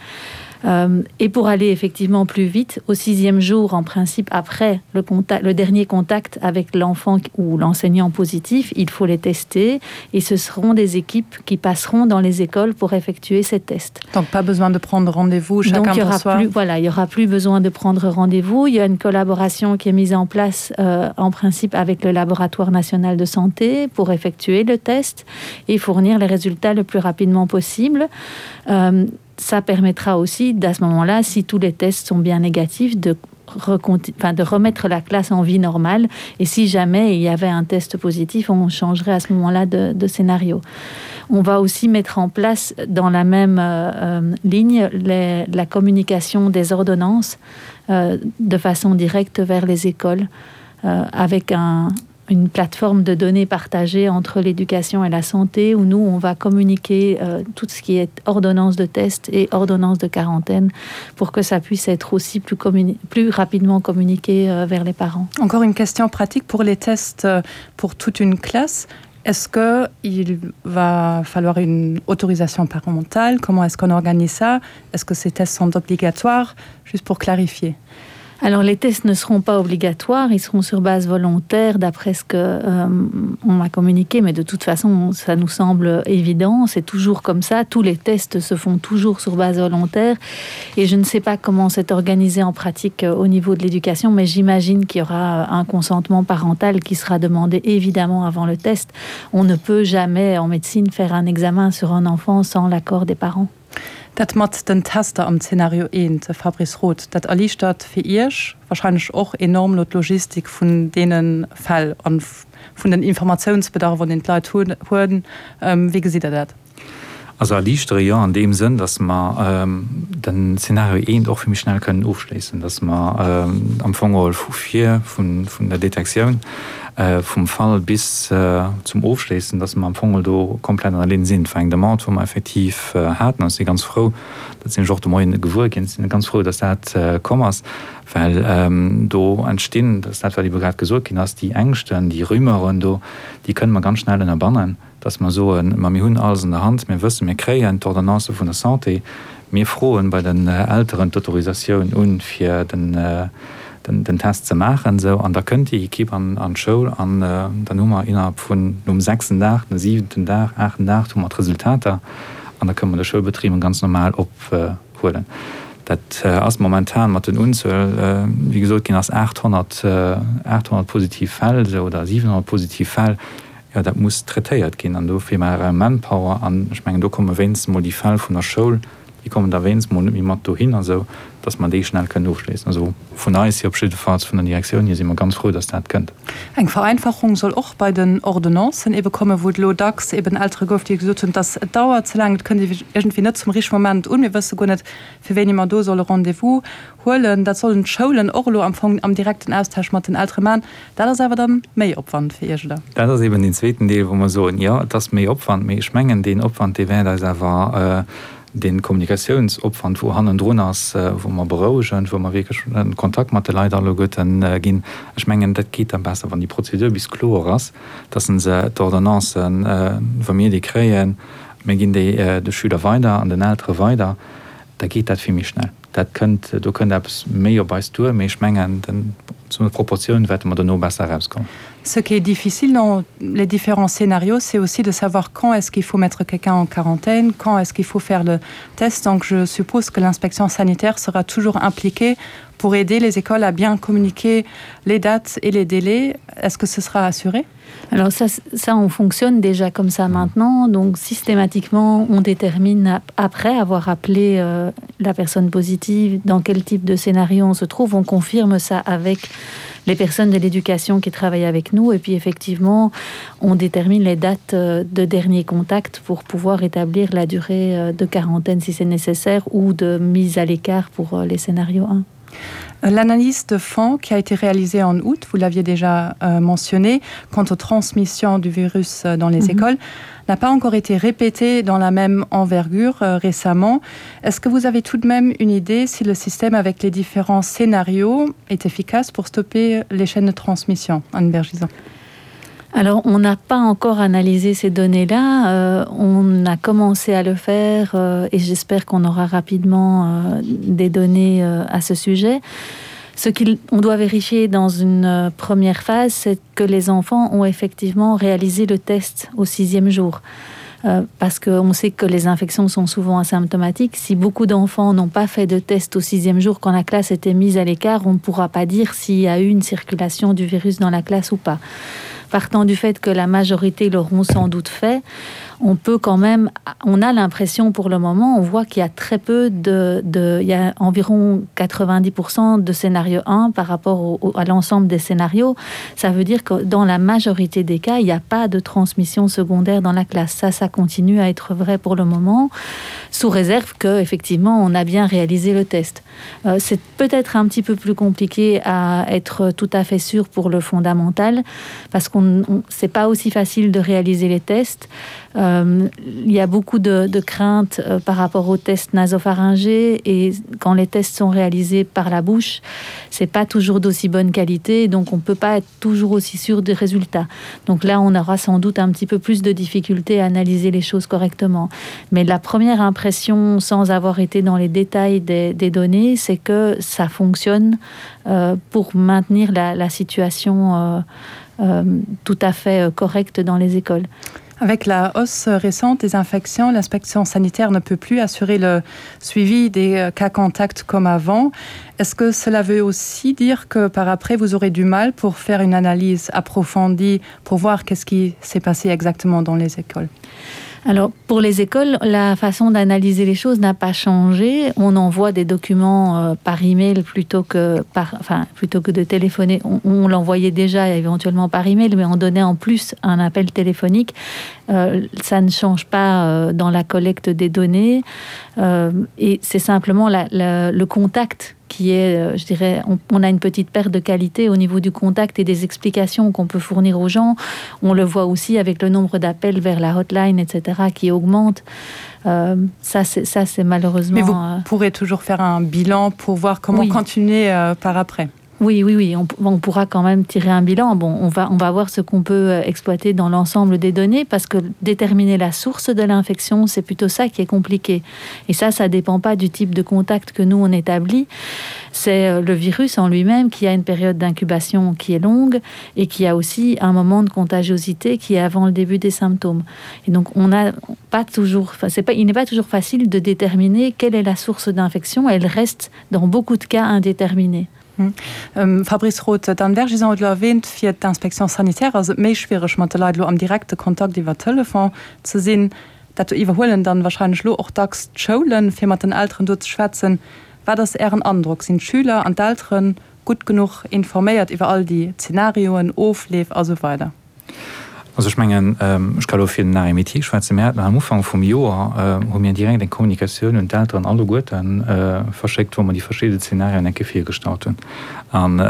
Euh, et pour aller effectivement plus vite, au sixième jour, en principe, après le, contact, le dernier contact avec l'enfant ou l'enseignant positif, il faut les tester et ce seront des équipes qui passeront dans les écoles pour effectuer ces tests. Donc pas besoin de prendre rendez-vous chacun Donc, il y aura plus, voilà, il y aura plus besoin de prendre rendez-vous. Il y a une collaboration qui est mise en place euh, en principe avec le laboratoire national de santé pour effectuer le test et fournir les résultats le plus rapidement possible. Euh, ça permettra aussi d'à ce moment-là, si tous les tests sont bien négatifs, de enfin, de remettre la classe en vie normale et si jamais il y avait un test positif, on changerait à ce moment-là de, de scénario. On va aussi mettre en place dans la même euh, euh ligne les, la communication des ordonnances euh, de façon directe vers les écoles euh, avec un, une plateforme de données partagées entre l'éducation et la santé où nous on va communiquer euh, tout ce qui est ordonnance de test et ordonnance de quarantaine pour que ça puisse être aussi plus plus rapidement communiqué euh, vers les parents. Encore une question pratique pour les tests euh, pour toute une classe. Est-ce que il va falloir une autorisation parentale? Comment est-ce qu'on organise ça? Est-ce que ces tests sont obligatoires? Juste pour clarifier. Alors les tests ne seront pas obligatoires, ils seront sur base volontaire d'après ce que euh, on m'a communiqué, mais de toute façon ça nous semble évident, c'est toujours comme ça, tous les tests se font toujours sur base volontaire et je ne sais pas comment c'est organisé en pratique euh, au niveau de l'éducation, mais j'imagine qu'il y aura un consentement parental qui sera demandé évidemment avant le test. On ne peut jamais en médecine faire un examen sur un enfant sans l'accord des parents. Dat mat den Tester am Zeenario eent, Fabrice Roth, dat erliichtert fir Iech wahrscheinlech och enorm elo d'Logistik vun deene Fäll an vun den Informatiounsbedarf, deen d'Leit hunn. Wéi gesitt Der dat? Also erliichtere jo an deem Sënn, datt mer den Zeenario eent och vill méi schnell kënnen ofschléissen, datt mer am Fong geholl vu vir, vun der Detektioun vum Fall bis zum Ofschléissen, datt mer am Fong geholl do komplett an der Linn sinn. Et war eng Demande, wou mer effektiv haten. An ech si ganz frou, dat sinn ech och de Moien gewuer ginn, ech si ganz frou, datt dat komm ass, well do entstinn, dat ass dat, wat ebe grad gesot ginn ass, déi Ängschten, déi Rumeuren do, déi kënne mer ganz schnell ënnerbannen. dass mer soen, ma mir hunn alles an der Hand, mir wëssen, mir kréien d'Ordonnance vun der Santé, mir froen bei den Elteren d'Autorisatioun un, fir den Test ze maachen, esou, an da kënnt déi Equipe an d'Schoul an dann hu mer innerhalb vun, nom sechsten Dag, nom siwenten Dag, aachten Dag hu mer d'Resultater an da kënne mer de Schoulbetrib ganz normal ophuelen. Dat ass momentan mat den Unzuel, wéi gesot ginn ass, 800, 800 positiv Fäll, esou, oder 700 positiv Fäll. Jo, dat muss traitéiert ginn an dofir maache Manpower an ech mengen, do komme wéinstens mol déi Fäll vun der Schoul, déi kommen da wéinstens mol net méi mat dohinner, esou datt mer déi schnell kënnen ofschléissen. Also vun eis hier op jiddefalls, vun der Direktioun hier si mer ganz frou, datt dat kënnt. Eng Vereinfachung soll och bei den Ordonnancen ebe kommen, wou et elo dacks eben Eltere gouf, déi gesot hunn, dass et dauert ze laang, et kënnt iergendwéi net zum richtege Moment un, mir wësse guer net, fir wéini mer do solle Rendez-vous huelen. Dat sollen d'Schoulen och elo am Fong am direkten Austausch mat den Eltere maachen. Dat ass awer dann méi Opwand fir Iech, oder? Dat ass eben deen zweeten Deel, wou mer soen, jo, et ass méi Opwand, mee ech mengen, deen Opwand, dee wäert eis awer, dee Kommunikatiounsopwand, wou hannendrun ass, wou mer berouegen, wou mer wierklech en Kontakt mat de Leit alleguerten ginn, ech mengen, dat geet da besser, wann déi Prozedur bis kloer ass, dass se d'Ordonnancen, wa mir déi kréien, mir ginn déi de Schüler weider an den Eltere weider, da geet dat vill méi schnell. Dat kënnt, do kënnt eppes méi op eis duer, mee ech mengen, zu der Proportioun wäerte mer dono besser erauskommen. Ce qui est difficile dans les différents scénarios, c'est aussi de savoir quand est-ce qu'il faut mettre quelqu'un en quarantaine, quand est-ce qu'il faut faire le test. Donc je suppose que l'inspection sanitaire sera toujours impliquée pour aider les écoles à bien communiquer les dates et les délais. Est-ce que ce sera assuré? Alors ça, ça on fonctionne déjà comme ça maintenant donc systématiquement on détermine après avoir appelé euh, la personne positive dans quel type de scénario on se trouve on confirme ça avec les personnes de l'éducation qui travaillent avec nous et puis effectivement on détermine les dates euh, de dernier contact pour pouvoir établir la durée euh, de quarantaine si c'est nécessaire ou de mise à l'écart pour euh, les scénarios 1. L'analyse de fonds qui a été réalisée en août, vous l'aviez déjà euh, mentionné, quant aux transmissions du virus euh, dans les mm -hmm. écoles, n'a pas encore été répétée dans la même envergure euh, récemment. Est-ce que vous avez tout de même une idée si le système avec les différents scénarios est efficace pour stopper les chaînes de transmission, Anne Bergison? Alors on n'a pas encore analysé ces données là euh, on a commencé à le faire euh, et j'espère qu'on aura rapidement euh, des données euh, à ce sujet. Ce qu'on doit vérifier dans une euh, première phase, c'est que les enfants ont effectivement réalisé le test au sixième jour. Euh, parce qu'on sait que les infections sont souvent asymptomatiques. Si beaucoup d'enfants n'ont pas fait de test au sixième jour quand la classe était mise à l'écart, on ne pourra pas dire s'il y a eu une circulation du virus dans la classe ou pas. Partant du fait que la majorité l'auront sans doute fait, on peut quand même on a l'impression pour le moment on voit qu'il y a très peu de, de il y a environ 90% de scénario 1 par rapport au, au, à l'ensemble des scénarios ça veut dire que dans la majorité des cas il n'y a pas de transmission secondaire dans la classe ça ça continue à être vrai pour le moment sous réserve que effectivement on a bien réalisé le test euh, c'est peut-être un petit peu plus compliqué à être tout à fait sûr pour le fondamental parce qu'on c'est pas aussi facile de réaliser les tests euh, il y a beaucoup de, de craintes euh, par rapport aux tests nasopharyngés et quand les tests sont réalisés par la bouche, c'est pas toujours d'aussi bonne qualité, donc on peut pas être toujours aussi sûr des résultats. Donc là, on aura sans doute un petit peu plus de difficultés à analyser les choses correctement. Mais la première impression, sans avoir été dans les détails des, des données, c'est que ça fonctionne euh, pour maintenir la, la situation euh, euh, tout à fait euh, correcte dans les écoles. Avec la hausse récente des infections, l'inspection sanitaire ne peut plus assurer le suivi des euh, cas contacts comme avant. Est-ce que cela veut aussi dire que par après vous aurez du mal pour faire une analyse approfondie pour voir qu'est-ce qui s'est passé exactement dans les écoles? Alors pour les écoles, la façon d'analyser les choses n'a pas changé. On envoie des documents euh, par email plutôt que par enfin plutôt que de téléphoner. On, on l'envoyait déjà éventuellement par email, mais on donnait en plus un appel téléphonique. Euh, ça ne change pas euh, dans la collecte des données euh, et c'est simplement la, la, le contact qui est, euh, je dirais, on, on a une petite perte de qualité au niveau du contact et des explications qu'on peut fournir aux gens. On le voit aussi avec le nombre d'appels vers la hotline, etc., qui augmente. Euh, ça, c'est malheureusement. Mais vous euh... pourrez toujours faire un bilan pour voir comment oui. continuer euh, par après. Oui, oui, oui, on, on pourra quand même tirer un bilan. Bon, on va, on va voir ce qu'on peut euh, exploiter dans l'ensemble des données parce que déterminer la source de l'infection, c'est plutôt ça qui est compliqué. Et ça, ça dépend pas du type de contact que nous on établit. C'est euh, le virus en lui-même qui a une période d'incubation qui est longue et qui a aussi un moment de contagiosité qui est avant le début des symptômes. Et donc on n'a pas toujours, enfin, c'est pas, il n'est pas toujours facile de déterminer quelle est la source d'infection. Elle reste dans beaucoup de cas indéterminée. Hm. Fabrice Roth, d'Anne Vergison huet elo erwähnt, fir d'Inspection sanitaire ass et méi schwiereg mat de Leit elo am direkte Kontakt iwwer Telefon ze sinn. Dat iwwerhuelen dann wahrscheinlech elo och dacks d'Schoulen, fir mat den Elteren do ze schwätzen. Wat ass Ären Androck? Sinn d'Schüler an d'Eltere gutt genuch informéiert iwwer all déi Zenarioen, Ofleef a sou weider? Also ech mengen, ech ka elo fir den Arrêt métier schwätzen, mir haten am Ufank vum Joer, hu mir direkt eng Kommunikatioun un d'Elteren alleguerte verschéckt, wou mer déi verschidde Zenarioen eng Kéier virgestallt hunn. An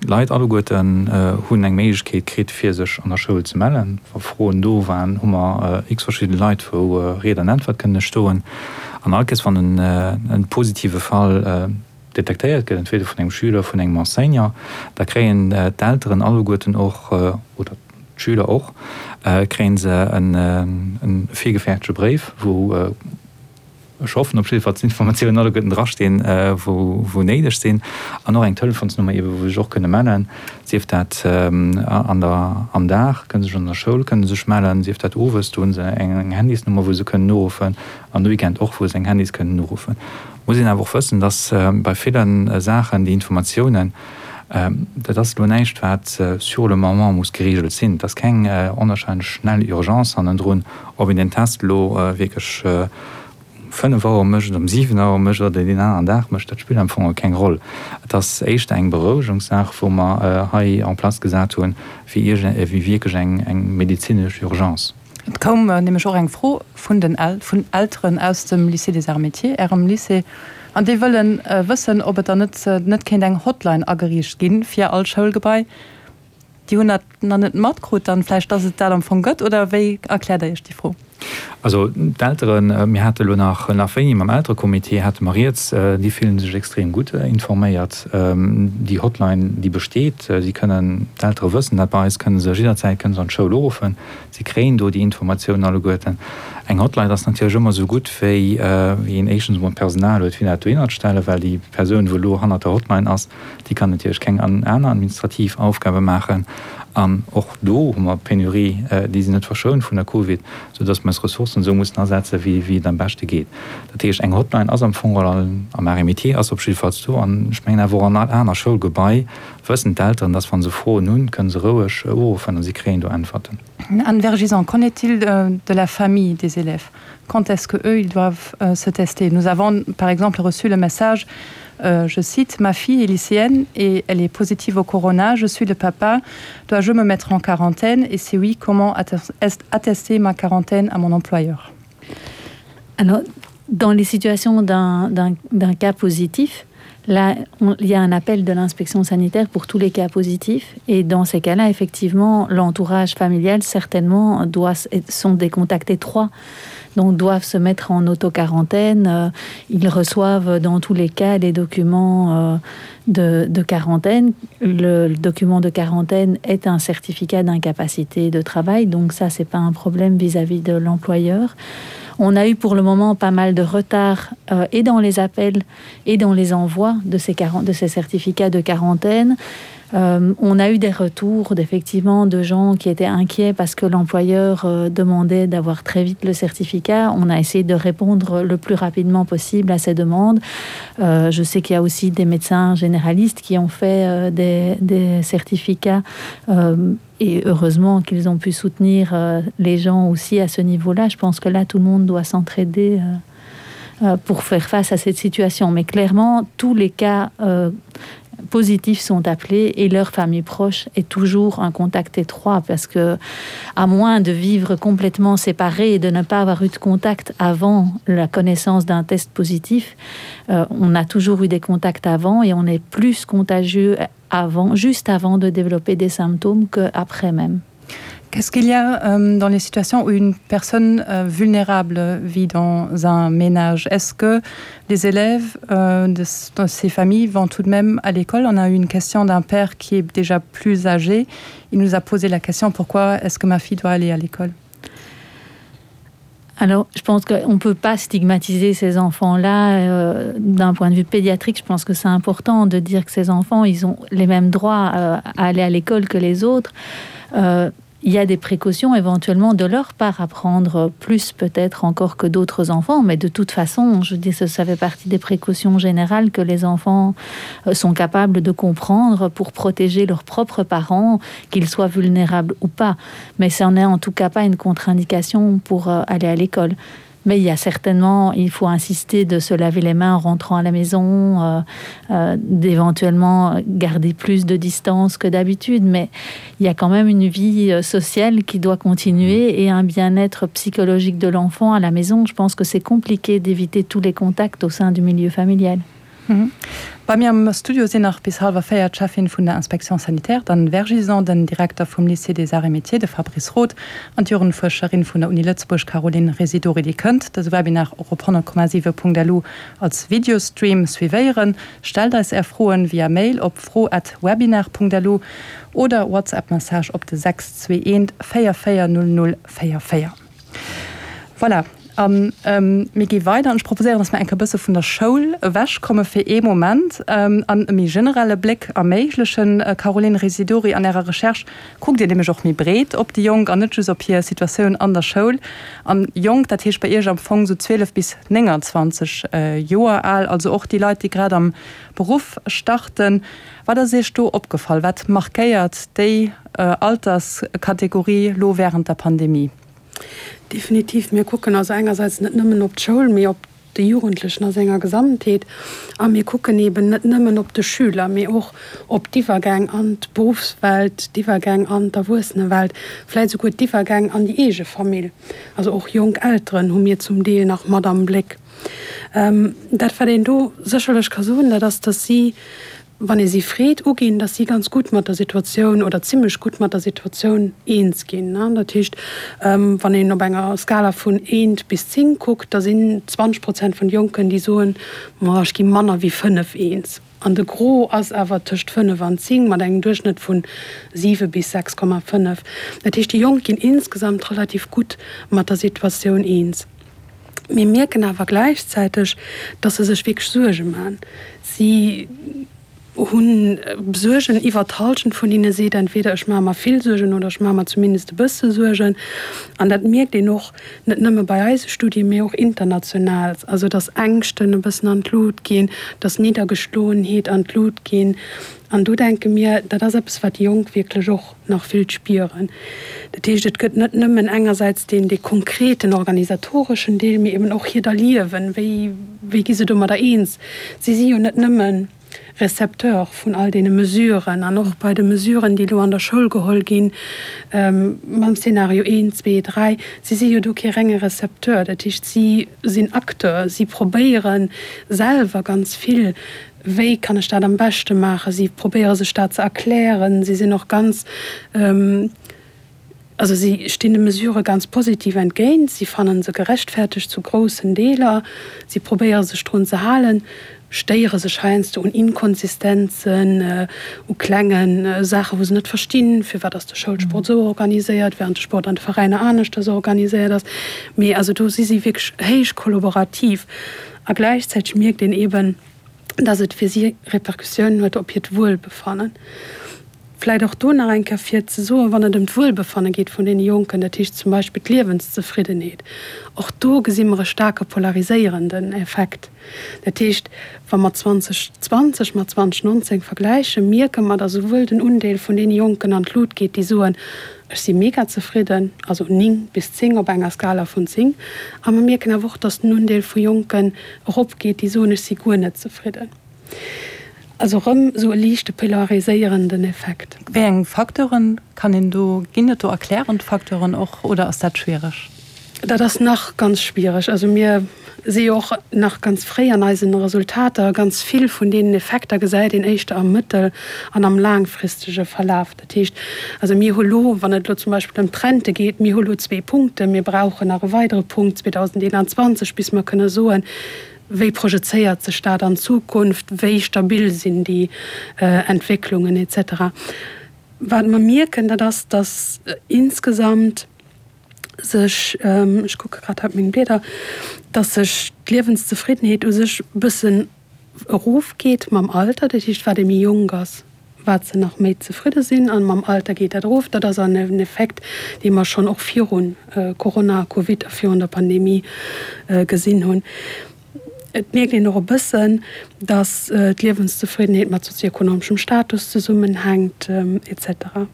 d'Leit alleguerten hunn eng Méiglechkeet kritt, fir sech an der Schoul ze mellen. Wa Froen do waren, hu mer x verschidde Leit, wou Ried an Äntwert kënne stoen. An all Kéiers, wann e positive Fall detektéiert gëtt, entweder vun engem Schüler, vun engem Enseignant, da kréien d'Elteren alleguerten och, oder d'Schüler och, kréie se e virgefäerdege Bréif, wou. Ech hoffen op jiddwer Fall, dass d'Informatiounen alleguerten drastinn, wou néideg sinn. An och eng Telefonsnummer eebe wou se sech och kënne mellen, sief dat an der, am Dag kënne se sech an der Schoul kënne sech mellen, sief dat owes, do hu se eng Handysnummer wou se kënnen uruffen, an de Weekend och wou se eng Handys kënnen uruffen. Muss een awer och wëssen, dass bei ville Saachen déi Informatiounen, dat ass elo näischt wat sur le moment muss geregelt sinn. Et ass keng onwahrscheinlech schnell Urgence hannendrun, Ob een den Test elo wierklech um 5 Auer mécht, um 7 Auer mécht oder deen aneren Dag mécht, dat spillt am Fong keng Roll. Et ass éischter eng Berouegungssaach, wou mer hei en place gesat hunn, wéi wierklech eng medezinesch Urgence. Et koum nämlech och eng Fro vun den vun Elteren aus dem Lycée des Arts Métiers, Ärem Lycée, an déi wëllen wëssen, ob et dann net net kéint eng Hotline ageriicht gi fir all Schoulgebai. Déi hunn dat nach net matkrut dann vläicht, dass et dat am Fong gëtt, oder wéi erkläert Der Iech déi Fro? Also d'Elteren, mir hate elo nach nach wéini mam Elterecomité hate mer rieds, déi fillen sech extrem gutt informéiert. Déi Hotline, déi besteet, si kënnen, d'Eltere wëssen dat, bei eis kënne se jidderzäit kënne se an d'Schoul uruffen, si kréien do déi Informatiounen alleguerten. Eng Hotline ass natierlech ëmmer esou gutt wéi wéi een éischtens emol d'Personal huet fir dat dohinner ze stellen, well déi Persoun wou elo hannert der Hotline ass, Déi kann natierlech keng aner administrativ Aufgabe maachen. An och do hu mer Penurie, déi sinn net verschount vun der Covid, soudass mer eis Ressourcen esou mussen asetzen, wéi et am beschte geet. Dat heescht, eng Hotline ass am Fong geholl am Arts et Métiers ass op jiddefalls do. An ech mengen awer och an all aner Schoulgebai wëssen d'Elteren, dass wa se Froen hunn, kënne se roueg uruffen a si kréien do Äntwerten. Anne Vergison, qu'en est-il de la famille des élèves? Quand est-ce que eux ils doivent euh, se tester? Nous avons par exemple reçu le message euh, je cite ma fille est lycéenne et elle est positive au corona, je suis le papa, dois-je me mettre en quarantaine et si oui, comment attester ma quarantaine à mon employeur? Alors, dans les situations d'un cas positif, là on, il y a un appel de l'inspection sanitaire pour tous les cas positifs et dans ces cas là effectivement l'entourage familial certainement doit sont des contacts étroits donc doivent se mettre en autoquarantaine euh, ils reçoivent dans tous les cas les documents euh, de, de quarantaine le, le document de quarantaine est un certificat d'incapacité de travail donc ça c'est pas un problème vis-à-vis -vis de l'employeur on a eu pour le moment pas mal de retard euh, et dans les appels et dans les envois de ces 40 de ces certificats de quarantaine euh, on a eu des retours d'effectivement de gens qui étaient inquiets parce que l'employeur euh, demandait d'avoir très vite le certificat on a essayé de répondre le plus rapidement possible à ces demandes euh, je sais qu'il y a aussi des médecins généralistes qui ont fait euh, des, des certificats euh, et heureusement qu'ils ont pu soutenir euh, les gens aussi à ce niveau là je pense que là tout le monde doit s'entraider euh, euh, pour faire face à cette situation mais clairement tous les cas euh, positifs sont appelés et leur famille proche est toujours un contact étroit parce que à moins de vivre complètement séparé et de ne pas avoir eu de contact avant la connaissance d'un test positif euh, on a toujours eu des contacts avant et on est plus contagieux avant juste avant de développer des symptômes que après même. Qu'est-ce qu'il y a euh, dans les situations où une personne euh, vulnérable vit dans un ménage Est-ce que les élèves euh, de, de ces familles vont tout de même à l'école On a eu une question d'un père qui est déjà plus âgé. Il nous a posé la question pourquoi est-ce que ma fille doit aller à l'école Alors je pense qu'on ne peut pas stigmatiser ces enfants là euh, d'un point de vue pédiatrique je pense que c'est important de dire que ces enfants ils ont les mêmes droits euh, à aller à l'école que les autres euh, il y a des précautions éventuellement de leur part à prendre plus peut-être encore que d'autres enfants mais de toute façon je dis ça, ça fait partie des précautions générales que les enfants euh, sont capables de comprendre pour protéger leurs propres parents qu'ils soient vulnérables ou pas mais ça en est en tout cas pas une contre-indication pour euh, aller à l'école mais il y a certainement il faut insister de se laver les mains en rentrant à la maison euh, euh, d'éventuellement garder plus de distance que d'habitude mais il y a quand même une vie euh, sociale qui doit continuer et un bien-être psychologique de l'enfant à la maison je pense que c'est compliqué d'éviter tous les contacts au sein du milieu familial mhm. Bei mir am Studio sinn nach bis hallwer 4 d'Cheffin vun der Inspection sanitaire, d'Anne Vergison, den Direkter vum Lycée des Arts et Métiers, de Fabrice Roth, an d'Jugendfuerscherin vun der Uni Lëtzebuerg Caroline Residori. Dir kënnt dëse Webinar och op 100,7.lu als Videostream suivéieren. Stellt eis Är Froen via Mail op fro@webinar.lu oder WhatsApp-Message op de 621 44 00 44. Voilà. A mir gi weider an ech proposéieren, dass mer eng Kéier e bësse vun der Schoul ewechkomme fir ee Moment an e méi generelle Bléck erméiglechen. Caroline Residori, an Ärer Recherche kuckt Dir nämlech och méi breet op déi Jonk an net just op hir Situatioun an der Schoul. An jonk, dat heescht bei Iech am Fong esou 12 bis 29 Joer al, also och déi Leit, déi grad am Beruff starten. Wat ass Iech do opgefall? Wat markéiert déi Alterskategorie lo wärend der Pandemie? Definitiv. Mir kucken also engersäits net nëmmen op d'Schoul, mee op de Jugendlechen a senger Gesamtheet. A mir kucken eeben net nëmmen op de Schüler, mee och op d'Iwwergäng an d'Beruffswelt, d'Iwwergäng an d'Erwuessenewelt, vläicht esouguer d'Iwwergäng an déi eege Famill. Also och jonk Elteren hu mir zum Deel nach mat am Bléck. Dat, wat een do sécherlech ka soen, dat ass, dass si wann ee si freet, uginn, datt si ganz gutt mat der Situatioun oder zimlech gutt mat der Situatioun eens ginn. Dat heescht, wann een op enger Skala vun eent bis 10 kuckt, da sinn 20 Prozent vun de Jonken, déi soen, Ma ech gi manner wéi 5 eens. An de Gros ass awer tëscht 5 an 10, mat engem Duerchschnëtt vu 7 bis 6,5. Dat heescht, déi Jonk ginn insgesamt relativ gutt mat der Situatioun eens. Mir mierken awer gläichzäiteg, dass se sech wierklech Suerge maachen. Si hu Suergen, iwwer d'Hallschent vun hinne seet entweder ech maache mer vill Suergen oder ech maache mer zumindest e bësse Suergen. An dat mierkt een och net nëmme bei eise Studien, mee och international, also dass Ängschten e bëssen an d'Lut ginn, dass Niddergeschloenheet an d'Lut ginn. An do denke mir, dat ass eppes, wat déi Jonk wierklech och nach vill spieren. Dat heescht, et gëtt net nëmmen engersäits deen, dee konkreten organisatoreschen Deel, mee eben och hiert Erliewen. Wéi, wéi gi se domadder eens? Si si jo net nëmme Recepteur vun all deene Mesuren an och bei de Mesuren, déi elo an der Schoul geholl ginn, mam Szenario eent, zwee, dräi, si si jo do kee renge Recepteur. Dat heescht, si sinn Acteur, si probéiere selwer ganz vill Wéi kann ech dat am beschte maachen? Si probéiere sech dat ze erklären. Si sinn och ganz, also si stinn de Mesurë ganz positiv entgéint. Si fannen se gerechtfertegt zu groussen Deeler. Si probéiere sech drun ze halen, stéiere sech heiansdo un Inkonsistenzen, u klenge Saachen, wou se net verstinn, firwat ass de Schoulsport esou organiséiert, während de Sport an de Veräiner aneschters organiséiert ass. Mee also do si si wierklech héich kollaborativ. A gläichzäiteg mierkt een eeben, dass et fir si Repercussiounen huet op hiert Wuelbefannen. Vläicht och do nach eng Kéier fir ze soen, wann et ëm d'Wuelbefanne geet vun deene Jonken, dat heescht zum Beispill d'Liewenszefriddenheet, och do gesi mer e staarke polariséierenden Effekt. Dat heescht, wa mer 2020 mat 2019 vergläichen, mierke mer, dass esouwuel den Undeel vun deene Jonken an d'Lut geet, déi soen, Ech si mega zefridden, also 9 bis 10 op enger Skala vun 10. A mer mierken awer och, datt den Undeel vu Jonken eropgeet, déi soen, ech si guer net zefridden. Also erëm esou e liichte polariséierenden Effekt. Wéi eng Facteuren kann een do, ginn et do erklärend Facteuren och oder ass dat schwiereg? Dat ass nach ganz schwiereg. Also mir si jo och nach ganz fréi an eisen Resultater. Ganz vill vun deenen Effekter gesäit een éischter am mëttel an am laangfristege Verlaf. Dat heescht, also mir hu lo, wann et elo zum Beispill ëm d'Rente geet, mir hu lo zwee Punkten, mir brauchen nach e weidere Punkt 2021, bis mer kënne soen, wéi projezéiert sech dat an d'Zukunft, wéi stabil sinn déi Entwécklungen et cetera. Wat mer mierken, dat ass, datt insgesamt, sech, ech kucke grad hei op meng Blieder, dass sech d'Liewenszefriddenheet u sech e bëssen erofgeet mam Alter. Dat heescht, wat ee méi jonk ass, wat se nach méi zefridde sinn a mam Alter geet dat erof. Dat ass en Effekt, dee mer schonn och viru Corona, Covid a virun der Pandemie gesinn hunn. Et mierkt een och e bëssen, dass d'Liewenszefriddenheet mat sozioekonomeschem Status zesummenhänkt, et cetera.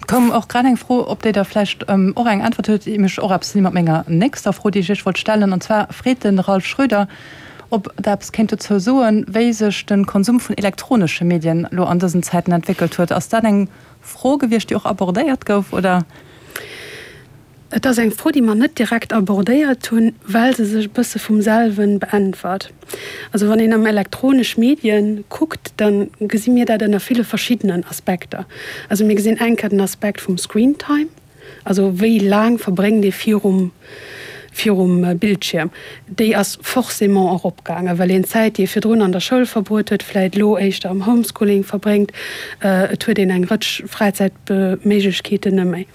Et koum och grad eng Fro, op déi Der vläicht och eng Äntwert hutt, déi mech och eppes mat menger nächster Fro, déi ech Iech wollt stellen. An zwar freet de Ralph Schröder, ob Der eppes kéint dozou soen, wéi sech de Konsum vun elektronesche Medien elo an dësen Zäiten entwéckelt huet. Ass dat eng Fro gewiescht, déi och abordéiert gouf, oder? Et ass eng Fro, déi mer net direkt abordéiert hunn, well se sech e bësse vum selwe beäntwert. Also wann een am elektronesch Medien kuckt, da gesi mir dat ënner ville verschiddenen Aspekter. Also mir gesinn eng Kéier den Aspekt vum Screentime, also wéi laang verbréngt ee virum virum Bildschierm. Déi ass forcément eropgaangen, well een d'Zäit, déi ee virdrun an der Schoul verbruet huet, vläit elo éischter am Homeschooling verbréngt. Et huet een eng Rëtsch Fräizäitméiglechkeeten net méi.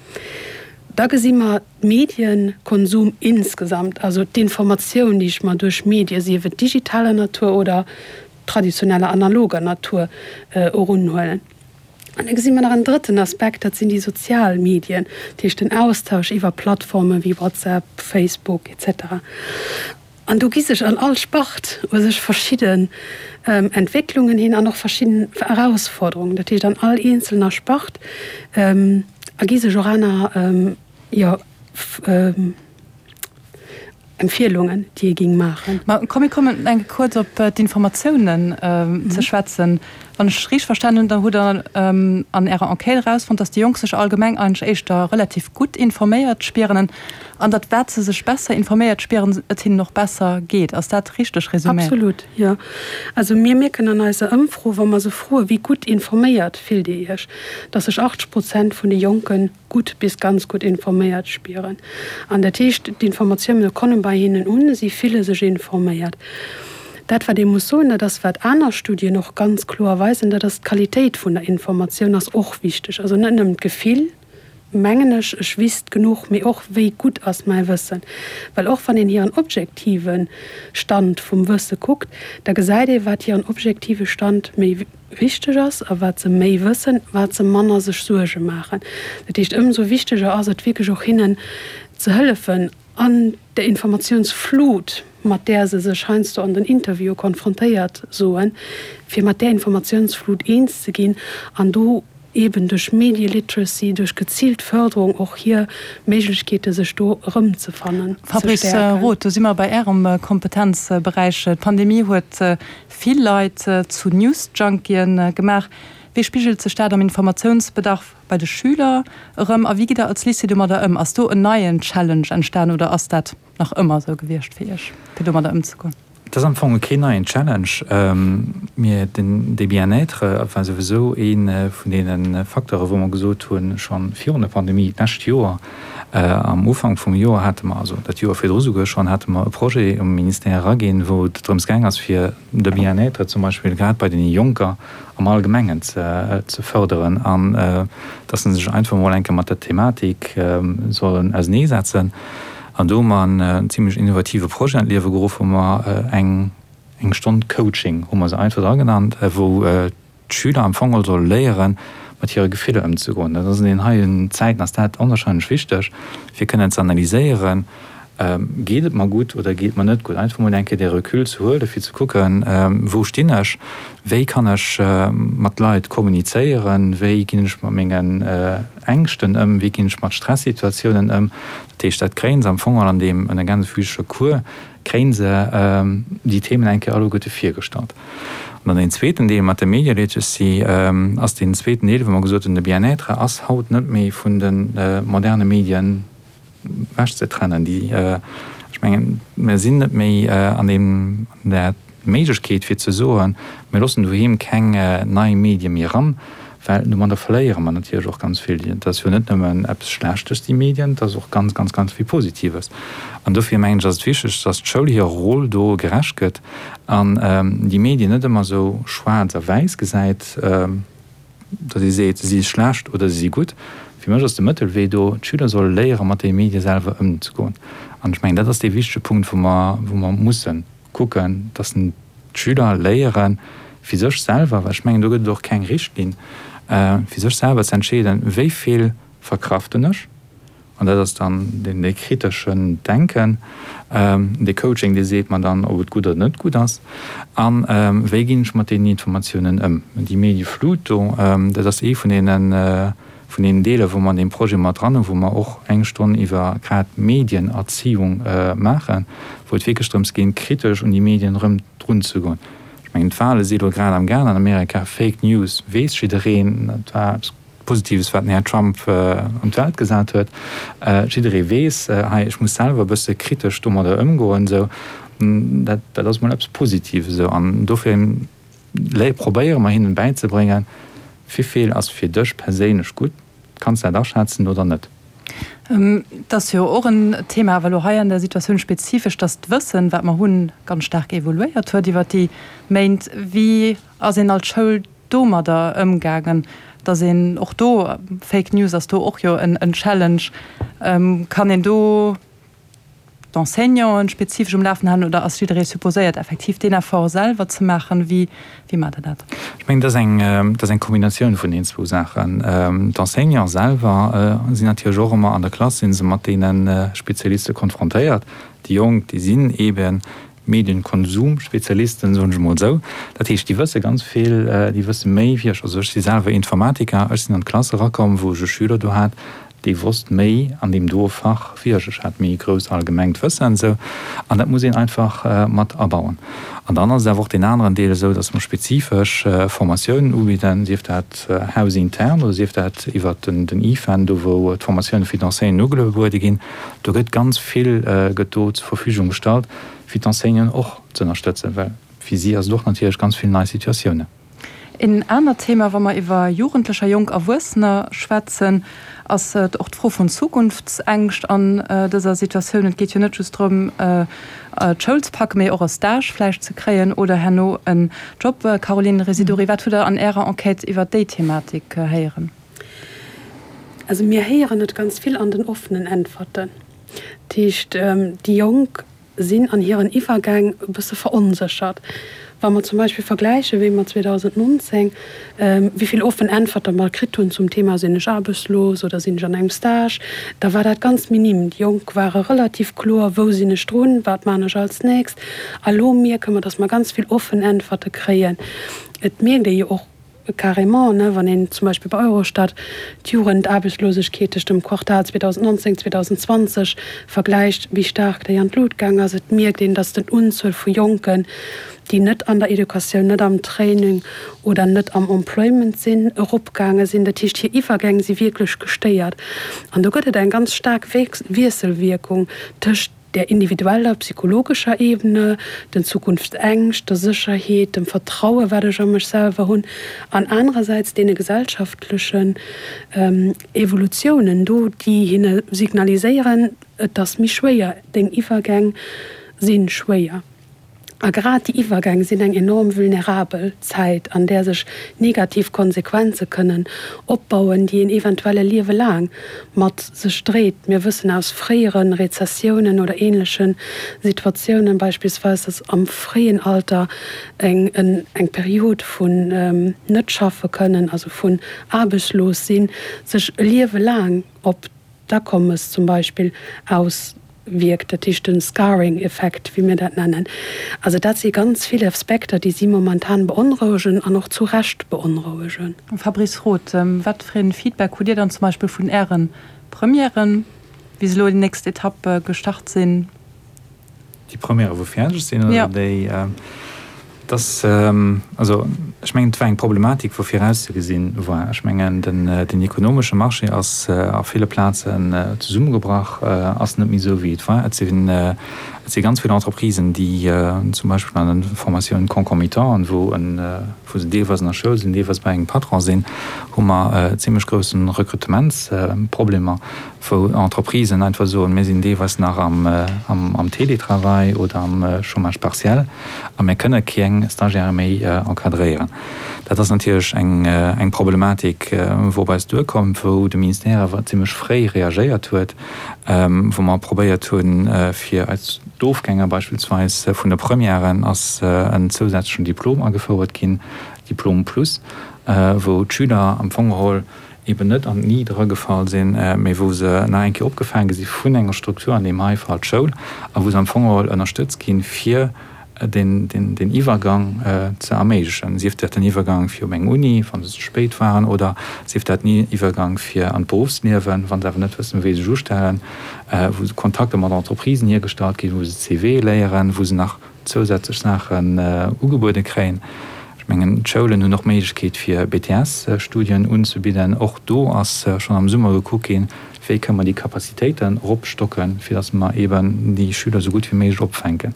Da gesi mer d'Medienkonsum insgesamt, also d'Informatioun, déi ech mer duerch Medie, sief et digitaler Natur oder traditioneller analoger Natur, erunhuelen. An da gesi mer nach en drëtten Aspekt, dat sinn déi sozial Medien, dat heescht den Austausch iwwer Plattforme wéi WhatsApp, Facebook et cetera. An do gi sech an all Spart u sech verschidden Entwécklungen hin an och verschidden Erausforderungen. Dat heescht an all eenzelner Spart ergi sech och aner, jo, Empfielungen, déi ee géing maachen. Ma komm, mir kommen eng Kéier kuerz op d'Informatiounen ze schwätzen. Wann ech richteg verstanen hunn, da hutt Der an Ärer Enquête erausfonnt, dass déi Jonk sech allgemeng eigentlech éischter relativ gutt informéiert spieren an datt wat se sech besser informéiert spieren, et hinnen och besser geet. Ass dat richteg resuméiert? Absolut, jo. Also mir mierken an eiser Ëmfro, wa mer se froen, wéi gutt informéiert fillt Dir Iech, dass sech 80 Prozent vun de Jonken gutt bis ganz gutt informéiert spieren. An dat heescht, d'Informatioune komme bei hinnen un, si fille sech informéiert. Dat, wat ee muss soen, dat ass, wat aner Studien och ganz kloer weisen, dat ass, d'Qualitéit vun der Informatioun ass och wichteg. Also net nëmmen d'Gefill, mengen ech, ech wisst genuch, mee och, wéi gutt ass mäi Wëssen. Well och wann een hiren objektive Stand vum Wësse kuckt, da gesäit ee, wat hiren objektive Stand méi wichteg ass a wat se méi wëssen, wat se manner sech Suerge maachen. Dat heescht, ëmsou wichteger ass et wierklech och hinnen ze hëllefen an der Informatiounsflut, mat där se sech heiansdo an den Interviewe konfrontéiert soen, fir mat där Informatiounsflut eens ze ginn an do eeben duerch Media Literacy, duerch geziilt Förderung och hir Méiglechkeete sech do erëmzefannen, ze Fabrice stäerken. Roth, do si mer bei Ärem Kompetenzberäich. D'Pandemie huet vill Leit zu News-Junkien gemaach. Wéi spigelt sech dat am Informatiounsbedarf bei de Schüler erëm a wéi gitt Der als Lycée domadder ëm? Ass do en neien Challenge entstan oder ass dat nach ëmmer esou gewiescht fir Iech, fir domadder ëmzegoen? Et ass am Fong keen neien Challenge. Mir, den, de Bien-être war souwisou ee vun deene Facteure wou mer gesot hunn, scho virun der Pandemie, d'lescht Joer am Ufank vum Joer hate mer, also dat Joer virdru souguer schonn, hate mer e Projet um Ministère eraginn, wou et drëms gaang ass fir de Bien-être zum Beispill grad bei deene Jonker am Allgemengen ze fërderen an dass se sech einfach emol eng Kéier mat der Thematik sollen auseneesetzen. An do hu mer en zimlech innovative Projet an d'Liewe geruff, wou mer eng eng Stonn Coaching, hu mer se einfach dra genannt, wou d'Schüler am Fong geholl solle léieren, mat hire Gefiller ëmzegoen. Dat ass an deenen heien Zäiten ass dat onwahrscheinlech wichteg, fir kënnen ze analyséieren, Geet et mer gutt oder geet et mer net gutt? Einfach mol eng Kéier dee Recul ze huelen, fir ze kucken, Wou stinn ech? Wéi kann ech mat Leit kommunizéieren? Wéi ginn ech mat mengen Ängschten ëm? Wéi ginn ech mat Stressituatiounen ëm? Dat heescht, dat kréie se am Fong all an deem gänsefüßege Cours, kréie se déi Themen eng Kéier alleguerte virgestallt. An dann deen zweeten Deel mat der Media Literacy ass deen zweeten Deel, wou mer gesot hunn, de Bien-être ass haut net méi vun de moderne Medien ewechzetrennen. Déi, ech mengen, mir sinn net méi an deem, an där Méiglechkeet fir ze soen, mir loossen doheem keng nei Medie méi eran, well domadder verléiere mer natierlech och ganz vill. Et ass jo net nëmmen eppes Schlechtes, déi Medien, et ass och ganz, ganz, ganz vill Positives. An dofir mengen ech, ass et wichteg, dass d'Schoul hirer Roll do gerecht gëtt an déi Medien net ëmmer esou schwaarz a wäiss gesäit, datt ee seet, se si schlecht oder se si gutt. Fir mech ass de Mëttelwee do, d'Schüler solle léiere mat de Medie selwer ëmzegoen. An ech mengen, dat ass dee wichtege Punkt, wou mer, wou mer mussen kucken, datt d'Schüler léieren, fir sech selwer, well ech mengen, do gëtt et och keng Richtlinn, fir sech selwer ze entscheeden, wéi vill verkraften ech, An dat ass dann deen dee kriteschen Denken, dee Coaching, dee seet mer dann, ob et gutt oder net gutt ass. A wéi ginn ech mat deenen Informatiounen ëm? Déi Medieflut do, dat ass ee vun deene vun deenen Deeler, wou mer an deem Projet mat dran hunn, wou mer och eng Stonn iwwer grad Medienerziehung maachen, wou et wierklech drëms geet, kritesch un déi Medien erëm drunzegoen. Ech mengen, d'Wale si elo grad am gaang an Amerika, Fake News weess jiddereen, dat war eppes, Positives, wat den Här Trump an d'Welt gesat huet. Jidderee weess, hei, ech muss selwer e bësse kritesch domadder ëmgoen, esou. Dat, dat ass emol eppes Positives, esou. An dofir probéiere mer hinnen bäizebréngen, Wivill ass fir dech perséinlech gutt, kanns de dat aschätzen oder net? Et ass jo och en Thema, awer elo hei an der Situatioun spezifesch, dass d'Wëssen, wat mer hunn, ganz staark evoluéiert huet iwwert déi Méint. Wéi ass een als Schoul domadder ëmgaangen? Dass een och do, Fake News ass do och jo en Challenge, kann een do d'Enseignanten spezifesch um Lafen halen oder ass jidderee supposéiert effektiv deen Effort selwer ze maachen? Wéi wéi maacht Der dat? Ech mengen, dat ass eng, dat ass eng Kombinatioun vun deenen zwou Saachen. D'Enseignanten selwer sinn natierlech och ëmmer an der Klass, si se mat deene Spezialiste konfrontéiert. Déi Jonk, déi sinn eeben Medienkonsumspezialisten, soen ech emol esou. Dat heescht, déi wësse ganz vill, déi wësse méi wéi ech. Also ech si selwer Informatiker, ech sinn an d'Klass erakomm, wou ech e Schüler do hat, dee wosst méi an deem doe Fach wéi ech. Ech hat méi e grousst allgemengt Wëssen esou an dat muss een einfach mat abauen. An dann ass et awer och deen aneren Deel esou, datt mer spezifesch Formatiounen ubidden, sief dat hausintern oder sief dat iwwert den IFEN, do wou d'Formatioune fir d'Enseignanten ugebuede ginn. Do gëtt ganz vill gëtt do zur Verfügung gestallt, fir d'Enseignanten och ze ënnerstëtzen, well fir si ass et och natierlech ganz vill nei Situatiounen. Een anert Thema, wa mer iwwer Jugendlecher, jonk Erwuessener schwätzen, ass och d'Fro vun Zukunftsängscht an dëser Situatioun. Et geet jo net just drëm, d'Schoul ze packen, mee och e Stage vläicht ze kréien oder herno en Job. Caroline Residori, wat hutt Der an Ärer Enquête iwwer déi Thematik héieren? Also mir héieren et ganz vill an den offenen Äntwerten. Dat heescht, déi Jonk sinn an hiren Iwwergäng e bësse veronséchert. Wa mer zum Beispill vergläichen, wéi mer 2019, wéi vill offen Äntwerte mer kritt hunn zum Thema Sinn ech aarbechtslos oder sinn ech an engem Stage, da war dat ganz minim. Déi Jonk ware relativ kloer, Wou sinn ech drun, wat man ech als nächst? A lo mierke mer, datt mer ganz vill offen Äntwerte kréien. Et mierkt ee jo och, Carrément, ne, wann een zum Beispill bei Eurostat d'Jugendaarbechtslosegkeet tëscht dem Quartal 2019, 2020 vergläicht, wéi staark déi an d'Lut gaang ass. Et mierkt een, datt den Unzuel vu Jonken, déi net an der Educatioun, net am Training oder net am Employment sinn, eropgaange sinn. Dat heescht, hir Iwwergäng si wierklech gestéiert. An do gëtt et eng ganz staark Wiesselwierkung tëscht der individueller psychologescher Ebene, den Zukunftsängscht, der Sécherheet, dem Vertraue wat ech a mech selwer hunn, an anerersäits deene gesellschaftlechen Evolutiounen do, déi hinne signaliséieren, et ass méi schwéier, deng Iwwergäng si schwéier. A grad déi Iwwergäng sinn eng enorm vulnerabel Zäit, an där sech negativ Konsequenze kënnen opbauen, déi een eventuell e Liewe laang mat sech dréit. Mir wëssen aus fréiere Rezessiounen oder änleche Situatiounen beispillsweis, dass am fréien Alter eng eng Period vun net schaffe kënnen, also vun aarbechtslos sinn, sech e Liewe laang op d'Akommes zum Beispill auswierkt, dat heescht de Scarring-Effekt, wéi mir dat nennen. Also dat si ganz vill Aspekter, déi si momentan beonrouegen an och zu Recht beonrouegen. Fabrice Roth, Wat fir ee Feedback hutt Dir dann zum Beispill vun Äre Premièren, wéi se elo déi nächst Etapp gestart sinn? Déi Premièrë wou fäerdeg sinn oder déi? Dass, also ech mengen, et war eng Problematik, wou virauszegesinn war. Ech mengen, den ekonomesche Marché ass a ville Plazen zesummegebrach, ass net méi esou, wéi et war. Et sinn, et si ganz vill Entreprisen, déi zum Beispill an den Formationen concomitantes, wou en, wou se deelweis an der Schoul sinn, deelweis bei engem Patron sinn, hu mer zimlech groussen Rekrutementsproblemer. wou Entreprisen einfach soen, mir sinn deelweis nach am Télétravail oder am Chômage partiel a mir kënne keng Stagiaire méi encadréieren. Dat ass natierlech eng Problematik, wou op eis duerkomm, wou de Ministère awer zimlech fréi reagéiert huet, wou mer probéiert hunn, fir eis d'Ofgänger beispillsweis vun de Premièren ass en zousätzlechen Diplom agefouert ginn, Diplôme plus, wou d'Schüler am Fong geholl eben net an d'Ni dragefall sinn, mee wou se nach eng Kéier opgefaange si vun enger Struktur, an deem hei Fall d'Schoul, a wou se am Fong geholl ënnerstëtzt ginn, fir den Iwwergang ze erméiglechen, sief dat den Iwwergang fir op eng Uni, wa se ze spéit waren, oder sief dat den Iwwergang fir an d'Beruffsliewen, wa se awer net wëssen, wéi se sech ustellen, wou Kontakter mat Entreprisen hiergestallt ginn, wou se CV léieren, wou se nach zousätzlech Saachen ugebuede kréien. Ech mengen, d'Schoulen hunn och d'Méiglechkeet fir BTS-Studien unzebidden. Och do ass schonn am Summer gekuckt ginn, wéi kënne mer déi Capacitéiten eropstocken, fir datt mer eeben déi Schüler esou gutt wéi méiglech opfänken.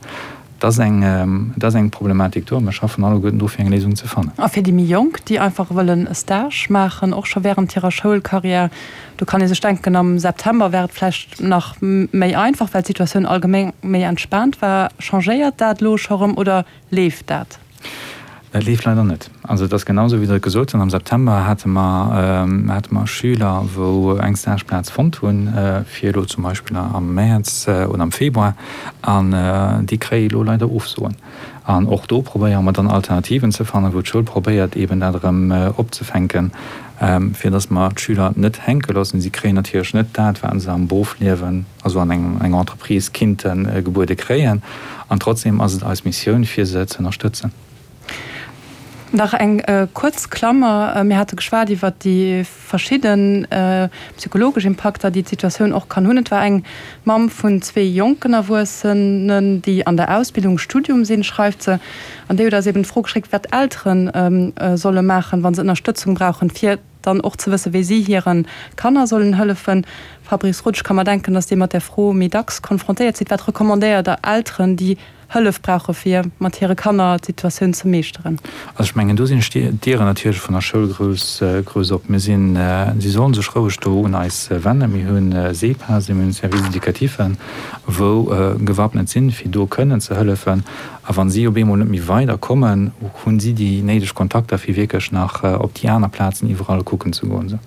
Et ass eng, et ass eng Problematik do a mir schaffen alleguerten dru fir eng Léisung ze fannen. A fir déi méi Jonk, déi einfach wëllen e Stage maachen, och scho während hirer Schoulcarrière, Do kann ee sech denken, am September war et vläicht nach méi einfach, well d'Situatioun allgemeng méi entspaant war. Changéiert dat elo scho rëm oder leeft dat? Dat leeft leider net. Also et ass genau esou, wéi Der et gesot hutt. Am September hate mer, hate mer Schüler, wou eng Stageplaz fonnt hunn, fir elo zum Beispill am Mäerz oder am Februar, an déi kréie elo leider Ofsoen. An och do probéiere mer dann Alternativen ze fannen, wou d'Schoul probéiert eeben dat erëm opzefänken, fir datt mer d'Schüler net hänke loossen. Si kréien natierlech net dat, wat se am Beruffliewen, also an enger Entreprise kinnte gebuede kréien. An trotzdem ass et eis Missioun, fir se ze ënnerstëtzen. Nach eng kuerz Klammer, Mir hate geschwat iwwert déi verschidde psychologesch Impakter, déi d'Situatioun och kann hunn. Et war eng Mamm vun zwee jonken Erwuessenen, déi an der Ausbildung, Studium sinn, schreift se. An déi huet eis eben d'Fro geschéckt, wat Eltere solle maachen, wa se Ënnerstëtzung brauchen, fir dann och ze wëssen, wéi si hire Kanner sollen hëllefen. Fabrice Roth, ech ka mer denken, datt Dir mat där Fro méi dacks konfrontéiert sidd. Wat recommandéiert Der Elteren, déi Hëllef brauche fir mat hire Kanner d'Situatioun ze meeschteren? Also ech mengen, do sinn d'Dieren natierlech vun der Schoul grouss, grouss op. Mir sinn, si sollen sech roueg do un eis wennen. Mir hunn SEPASen, mir hunn Services éducatifs, wou gewappnet sinn, fir do kënnen ze hëllefen. A wa si op eemol net méi weider kommen, hunn si déi néideg Kontakter, fir wierklech nach op déi aner Plazen iwwerall kucken ze goen.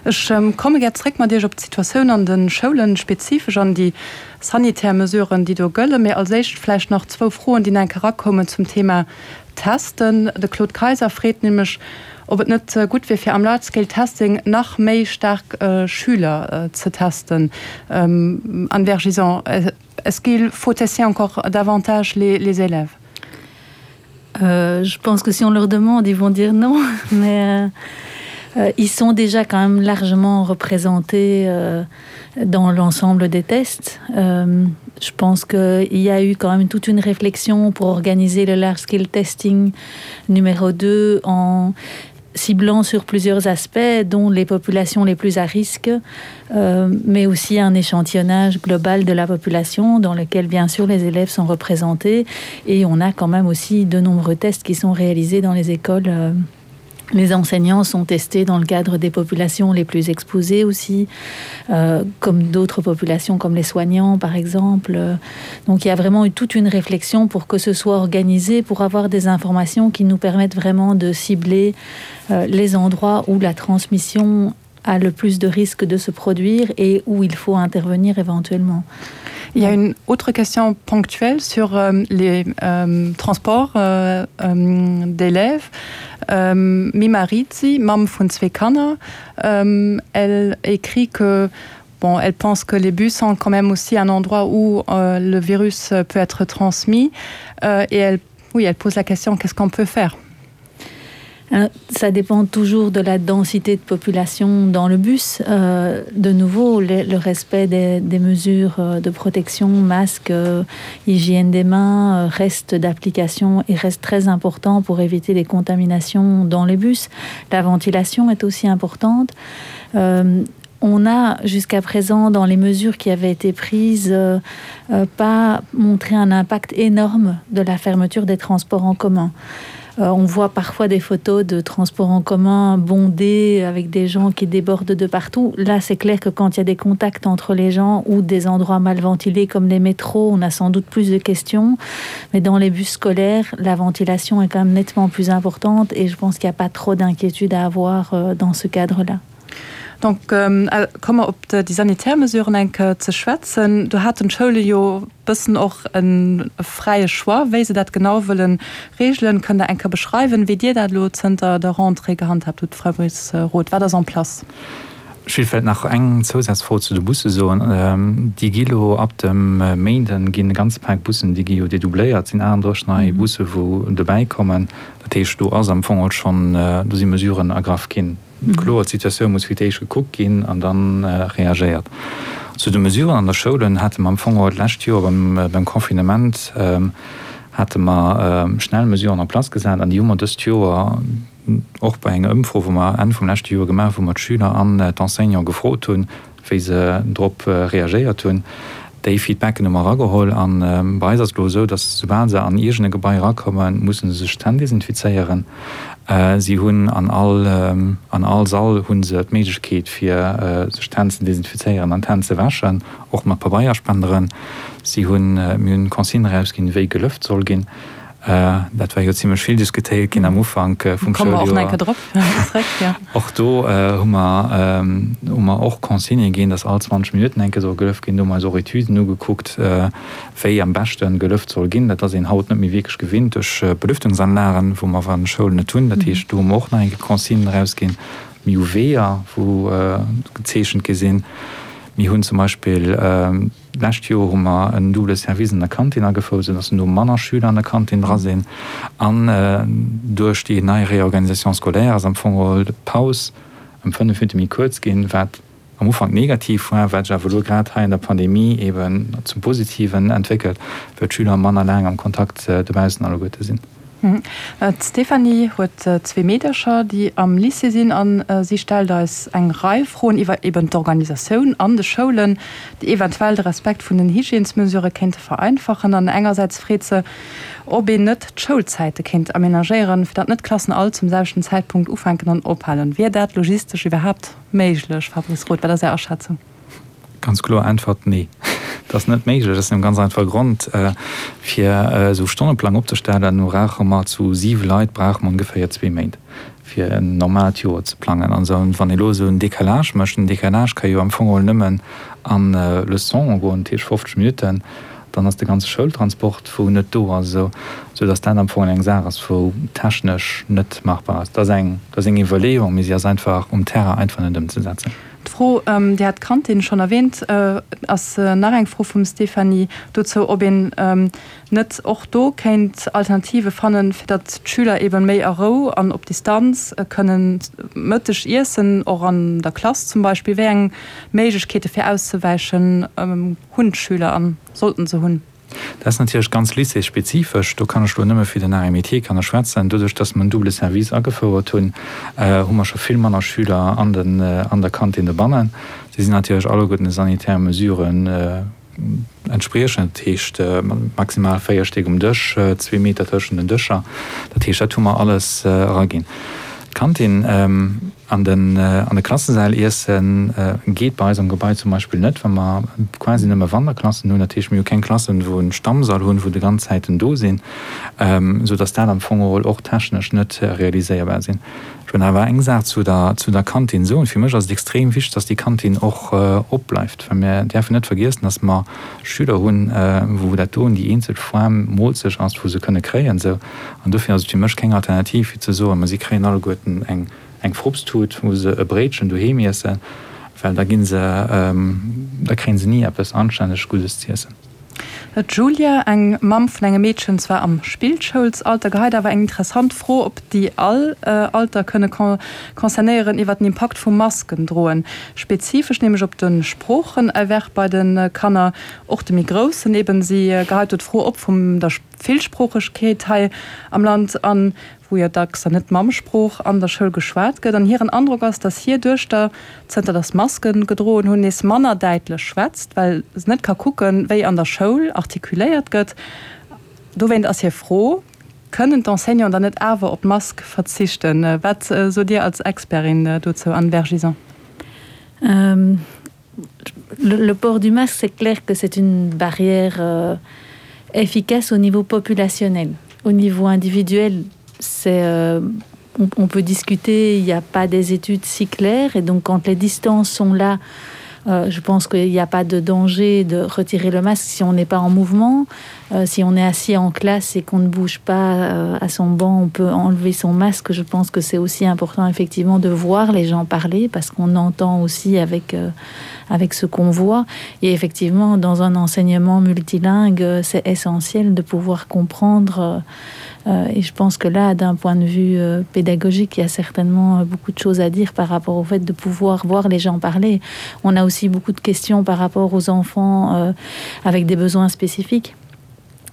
Ech komme gär zréck mat Iech op d'Situatioun an de Schoulen, spezifesch an déi sanitär Mesuren, déi do gëllen. Mee als éischt vläicht nach zwou Froen, déi nach eng Kéier erakoumen zum Thema Testen. De Claude Kayser freet nämlech, ob et net gutt wier, fir am Large Scale Testing nach méi staark Schüler ze testen. Anne Vergison, est-ce qu'il faut tester encore davantage les élèves? Euh, je pense que si on leur demande, ils vont dire non, mais euh, euh, ils sont déjà quand même largement représentés euh, dans l'ensemble des tests. Euh, je pense qu'il y a eu quand même toute une réflexion pour organiser le large scale testing numéro 2 en ciblant sur plusieurs aspects, dont les populations les plus à risque, euh, mais aussi un échantillonnage global de la population dans lequel bien sûr les élèves sont représentés et on a quand même aussi de nombreux tests qui sont réalisés dans les écoles. Euh, Les enseignants sont testés dans le cadre des populations les plus exposées aussi, euh, comme d'autres populations comme les soignants par exemple. Donc il y a vraiment eu toute une réflexion pour que ce soit organisé pour avoir des informations qui nous permettent vraiment de cibler euh, les endroits où la transmission a le plus de risques de se produire et où il faut intervenir éventuellement. Il y a une autre question ponctuelle sur euh, les euh, transports euh, euh, d'élèves. Euh, Mimarizi, Mam vun zwei Kanner, euh, elle écrit que bon, elle pense que les bus sont quand même aussi un endroit où euh, le virus peut être transmis euh, et elle, oui, elle pose la question qu'est-ce qu'on peut faire? Euh, ça dépend toujours de la densité de population dans le bus. Euh, de nouveau, le, le respect des, des mesures euh, de protection, masque, euh, hygiène des mains reste d'application et reste très important pour éviter les contaminations dans les bus. La ventilation est aussi importante. Euh, on a jusqu'à présent dans les mesures qui avaient été prises euh, euh, pas montré un impact énorme de la fermeture des transports en commun. Euh, on voit parfois des photos de transports en commun bondés avec des gens qui débordent de partout. Là, c'est clair que quand il y a des contacts entre les gens ou des endroits mal ventilés comme les métros, on a sans doute plus de questions. Mais dans les bus scolaires, la ventilation est quand même nettement plus importante et je pense qu'il n'y a pas trop d'inquiétude à avoir euh, dans ce cadre-là. Donc komme mer op déi sanitär Mesuren eng Kéier ze schwätzen. Do haten d'Schoule jo bëssen och e fräie Choix, wéi se dat genau wëlle reegelen. Kënnt Der eng Kéier beschreiwen, wéi Dir dat elo zënter der Rentrée gehandhaabt hutt, Fabrice Roth? Wat ass en place? Ech wéilt vläicht nach eng Zousazfro zu de Busse soen. Déi gi lo ab dem Méinden ginn e ganze Pak Bussen, déi gi jo dedoubléiert, et sinn 38 nei Busse wou dobäi kommen. Dat heescht, do ass am Fong och schonn, do si Mesuren ergraff ginn. Kloer, d'Situatioun muss fir d'éischt gekuckt ginn an da reagéiert. Zu de Mesuren an der Schoulen hate mer am Fong och d'lescht Joer beim Confinement hate mer schnell Mesuren en place gesat an déi hu mer dëst Joer och bei enger Ëmfro, wou mer Enn vum leschte Joer gemaach hu, wou mer d'Schüler an d'Enseignante gefrot hunn, wéi se drop reagéiert hunn. Déi Feedbacken hu mer erageholl a bei eis ass et elo esou, datt soubal se an iergend e Gebai erakommen, musse se sech d'Hänn desinfizéieren. Si hunn an all an all Sall hu se d'Méiglechkeet fir sech d'Hänn ze desinfizéieren an d'Hänn ze wäschen, och mat Pabeierspenderen. Si hunn, mir hunn Consignen erausginn, wéi gelëft soll ginn. Dat war jo zimlech vill diskutéiert ginn am Ufank vum Schouljoer. Och do hu mer, hu mer och Consignë ginn, dass all 20 Minutten eng Kéier soll gelëft ginn. Do hu mer eis och Etüden ugekuckt, wéi am beschte gelëft soll ginn. Dat ass een haut net méi wierklech gewinnt duerch Belüftungsanlagen, wou mer an de Schoulen net hunn. Dat heescht, do hu mer och nach eng Kéier Consignen erausginn. Mir hu Weeër, wou gezeechent gi sinn. Mir hunn zum Beispill D'lescht Joer hu mer en double Service an der Kantin agefouert, esou dass elo manner Schüler an der Kantin dra sinn. An duerch déi nei Réorganisation scolaire ass am Fong geholl d'Paus ëm 5 Minutte méi kuerz ginn, wat am Ufank negativ war, wat sech awer elo grad hei an der Pandemie eeben zum Positiven entwéckelt, well d'Schüler manner laang am Kontakt dobaussen alleguerte sinn. D'Stéphanie huet zwee Meedercher, déi am Lycée sinn a si stellt eis eng Rei Froen iwwer eben d'Organisatioun an de Schoulen, déi eventuell de Respekt vun den Hygiènesmesurë kéinte vereinfachen. An engersäits freet se, ob een net d'Schoulzäite kéint amenagéieren, fir datt net d'Klassen all zum selwechten Zäitpunkt ufänken an ophalen. Wier dat logistesch iwwerhaapt méiglech, Fabrice Roth? Wat ass Är Aschätzung? Ganz kloer Äntwert, Nee, dat ass net méiglech. Aus engem ganz einfache Grond, Fir esou e Stonneplang opzestellen, brauche mer zu siwe Leit brauche mer ongeféier zwee Méint, fir en normaalt Joer ze plangen. An esou, wann ee elo esou en Décalage mécht, en Décalage ka jo am Fong geholl nëmmen a Leçonen goen, dat heescht 50 Minutten, dann ass de ganze Schoultransport, wou net do ass, esou, esou datt dat am Fong eng Saach ass, wou technesch net machbar ass. Dat ass eng, dat ass eng Iwwerleeung, mee si ass einfach um Terrain einfach net ëmzesetzen. D'Fro, Dir hat d'Kantin schonn erwähnt, ass nach eng Fro vum Stéphanie dozou, ob een net och do kéint Alternative fannen, fir datt d'Schüler eebe méi a Rou an op Distanz kënnen Mëtteg iessen, och an der Klass zum Beispill. Wéi eng Méiglechkeete fir auszewäichen hunn d'Schüler a sollten se hunn? Dat ass natierlech ganz lycéesspezifesch. Do kann ech elo nëmme fir den Arts et Métiers kann ech schwätzen. Doduerch, dass mer en double Service agefouert hunn, hu mer scho vill manner Schüler an den, an der Kantin dobannen. Si sinn natierlech alleguerten de sanitäre Mesuren entspriechend, dat heescht maximal 4 Stéck um Dësch, zwee Meter tëschent den Dëscher. Dat heescht, dat hu mer alles eraginn. D'Kantin An den an de Klassesäll iessen geet bei eis am Gebai zum Beispill net, well mer quasi nëmme Wanderklassen hunn. Dat heescht, mir hu keng Klassen, wou en Stammsall hunn, wou de ganz Zäiten do sinn, esou dass dat am Fong geholl och technesch net realiséierbar sinn. Ech wëll awer eng Saach zu der zu der Kantin soen. Fir mech ass et extrem wichteg, dass déi Kantin och opbleift, well mir däerfen net vergiessen, dass mer Schüler hunn, wou dat doen déi eenzeg Form Moolzeg ass, wou se kënne kréien. Esou. An dofir ass et fir mech keng Alternativ, fir ze soen, ma si kréien alleguerten eng eng Frupstut, wou se e Bréitchen doheem iessen, well da gi se, da kréie se ni eppes anstänneg Guddes z'iessen. D'Julia, eng Mamm vun engem Meedchen, zwar am Spillschoulsalter, geheit awer eng interessant Fro op, déi all Alter kënne concernéieren, iwwer den Impakt vum Maskendroen, spezifesch nämlech op de Sproochenerwerb bei de Kanner, och de méi Groussen eben. Si geheit do d'Fro op vum der Villsproochegkeet hei am Land an wou jo dacks dann net d'Mammsprooch an der Schoul geschwat gëtt. An hiren Androck ass, datt hir Duechter, zënter datt Maske gedroen hunn, nees manner däitlech schwätzt, well se net ka kucken, wéi an der Schoul artikuléiert gëtt. Dowéint ass hir Fro, Kënnen d'Enseignanten dann net awer op d'Mask verzichten? Wat sot Dir als Expertin dozou, Anne Vergison? Le port du masque, c'est clair que c'est une barrière euh, efficace au niveau populationnel. Au niveau individuel, c'est euh, on, on peut discuter, il n'y a pas des études si claires et donc quand les distances sont là, euh, je pense qu'il n'y a pas de danger de retirer le masque si on n'est pas en mouvement. Euh, si on est assis en classe et qu'on ne bouge pas euh, à son banc, on peut enlever son masque. Je pense que c'est aussi important effectivement de voir les gens parler parce qu'on entend aussi avec, euh, avec ce qu'on voit. Et effectivement, dans un enseignement multilingue, euh, c'est essentiel de pouvoir comprendre euh, Euh, et je pense que là, d'un point de vue euh, pédagogique, il y a certainement euh, beaucoup de choses à dire par rapport au fait de pouvoir voir les gens parler. On a aussi beaucoup de questions par rapport aux enfants euh, avec des besoins spécifiques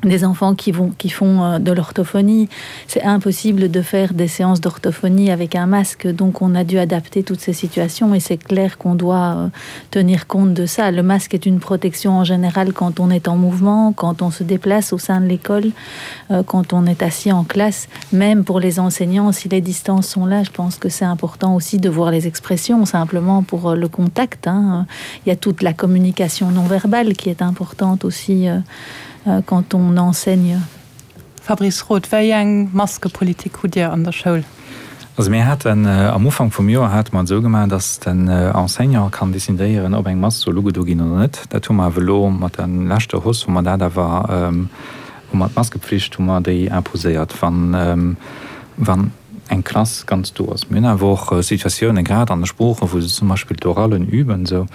des enfants qui vont qui font euh, de l'orthophonie c'est impossible de faire des séances d'orthophonie avec un masque donc on a dû adapter toutes ces situations et c'est clair qu'on doit euh, tenir compte de ça le masque est une protection en général quand on est en mouvement quand on se déplace au sein de l'école euh, quand on est assis en classe même pour les enseignants si les distances sont là je pense que c'est important aussi de voir les expressions simplement pour le contact hein. il y a toute la communication non verbale qui est importante aussi euh, Euh, quand on enseigne. Fabrice Roth, Wéi eng Maskepolitik hutt Dir an der Schoul? Also mir haten am Ufank vum Joer hate mer et esou gemaach, datt den Enseignant kann decidéieren, ob eng Mask soll ugedo ginn oder net. Dat hu mer awer elo mat der leschter Hausse hu mer dat awer, hu mer d'Maskepflicht hu mer déi imposéiert, wann, wann eng Klass ganz do ass. Mir hunn awer och Situatiounen, grad an de Sproochen, wou se zum Beispill d'Orallen üben esou,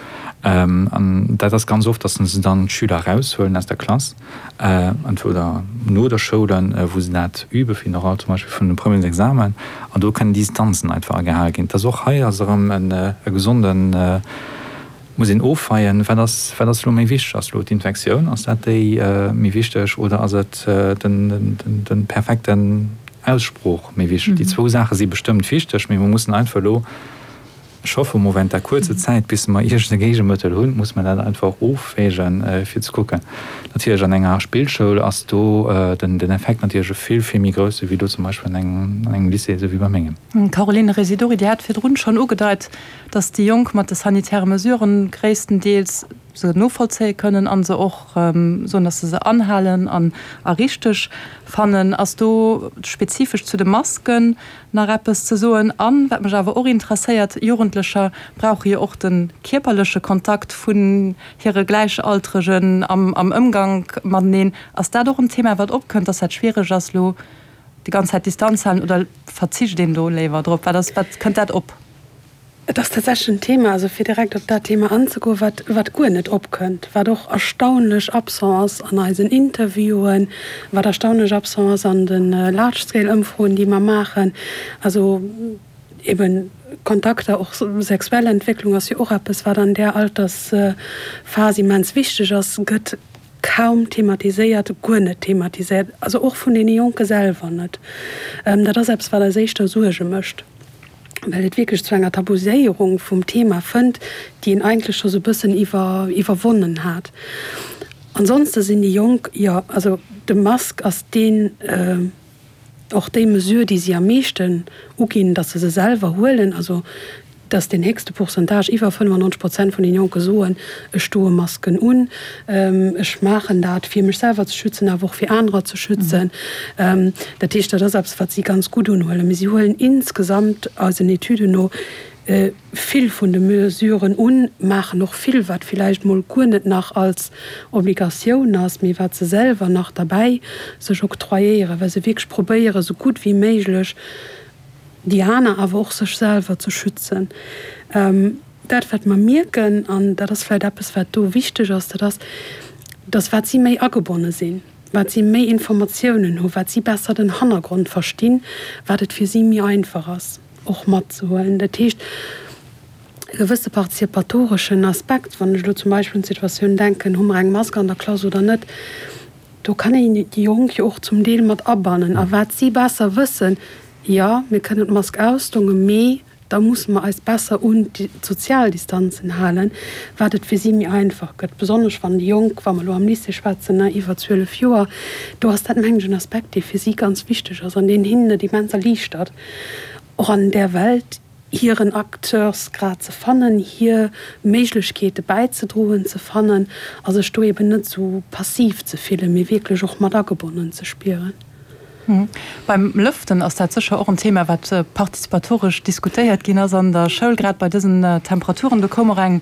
an dat ass ganz oft, datt se dann d'Schüler eraushuelen aus der Klass, entweder no der Schoul, wou se dat übe fir den Oral zum Beispill vun de Premiers Examen, an do kënnen Distanzen einfach agehale ginn. Et ass och hei ass erëm e gesonden, muss een ofweien, wat ass, wat ass elo méi wichteg? Ass elo d'Infektioun, ass dat déi méi wichteg oder ass et den, den perfekten Aussprooch méi wichteg? Déi zwou Saache si bestëmmt wichteg, mee mer mussen einfach elo, Ech hoffe mol, während der kuerzer Zäit, bis mer iergend e Géigemëttel hunn, muss mer dat einfach ofwägen, fir ze kucken. Natierlech an enger Spillschoul ass do den Effekt natierlech e vill, vill méi grousse wéi do zum Beispill an engem Lycée, esou wéi bei mengem. Caroline Residori, Dir hat virdrun schonn ugedeit, datt déi Jonk mat de sanitäre Mesuren gréisstendeels se novollzéie kënnen a se och soen, datt se se anhalen an a richteg fannen. Ass do spezifesch zu de Masken nach eppes ze soen? An, wat mech awer och interesséiert, Jugendlecher brauche jo och de kierperleche Kontakt vun hire Gläichaltregen am am Ëmgank mateneen. Ass dat och en Thema, wat opkënnt, datt dat schwiereg ass elo déi ganz Zäit Distanz halen oder verzicht een do léiwer drop? Wat ass, wat kënnt dat op? Et ass tatsächlech en Thema, also fir direkt op dat Thema anzegoen, wat, wat guer net opkënnt, wat och erstaunlech absent ass an eisen Interviewen, wat erstaunlech absent ass an de Large-Scale-Ëmfroen, déi mer maachen. Also eben Kontakter, och sexuell Entwécklung ass jo och eppes, wat an där Altersphas immens wichteg ass, gëtt kaum thematiséiert, guer net thematiséiert, also och vun deene Jonke selwer net. Dat ass eppes, wat eis éischter Suerge mécht. well et wierklech zu enger Tabuséierung vum Thema fënnt, déi een eigentlech scho sou bëssen iwwer iwwerwonnen hat. Ansonste sinn déi Jonk, jo, also de Mask ass deen, och déi Mesure, déi si am meeschten uginn, datt se se selwer huelen, also datt deen héchste Pourcentage, iwwer 95 Prozent vun den Jonke soen, ech doe Masken un, ech maachen dat, fir mech selwer ze schützen, awer och fir anerer ze schützen. Dat heescht, dat ass eppes, wat si ganz gutt unhuelen. Mee si huelen insgesamt eisen Etüden no vill vun de Mesuren un, maachen och vill, wat villäicht mol guer net nach als Obligatioun ass, mee wat se selwer nach derbäi sech octroyéieren, well se wierklech probéieren, esou gutt wéi méiglech déi aner, awer och sech selwer ze schützen. Dat, wat mer mierken, an dat ass vläicht eppes, wat do wichteg ass, dat ass, dass wat si méi agebonne sinn, wat si méi Informatiounen hu, wat si besser den Hannergrond verstinn, wat et fir si méi einfach ass, och matzehuelen. Dat heescht, e gewësse partizipatoreschen Aspekt, wann ech elo zum Beispill un d'Situatioun denken, hu mer eng Mask an der Klass oder net, do kann een déi Jonk jo och zum Deel mat abannen. A wat si besser wëssen, jo, mir kënnen d'Mask ausdongen, mee da musse mer eis besser un d'sozial Distanzen halen, wat et fir si méi einfach gëtt, besonnesch wann déi Jonk, wa mer elo am Lycée schwätzen, iwwer 12 Joer, do ass dat, mengen ech, en Aspekt, dee fir si ganz wichteg ass an deen hinnen et immens erliichtert, och an där Welt hiren Acteursgrad ze fannen, hir Méiglechkeete bäizedroen ze fannen a sech do eben net esou passiv ze fillen, mee wierklech och mat agebonnen ze spieren. Beim Lëften ass dat sécher och en Thema, wat partizipatoresch diskutéiert ginn ass an der Schoul, grad bei dësen Temperaturen. Do koum och eng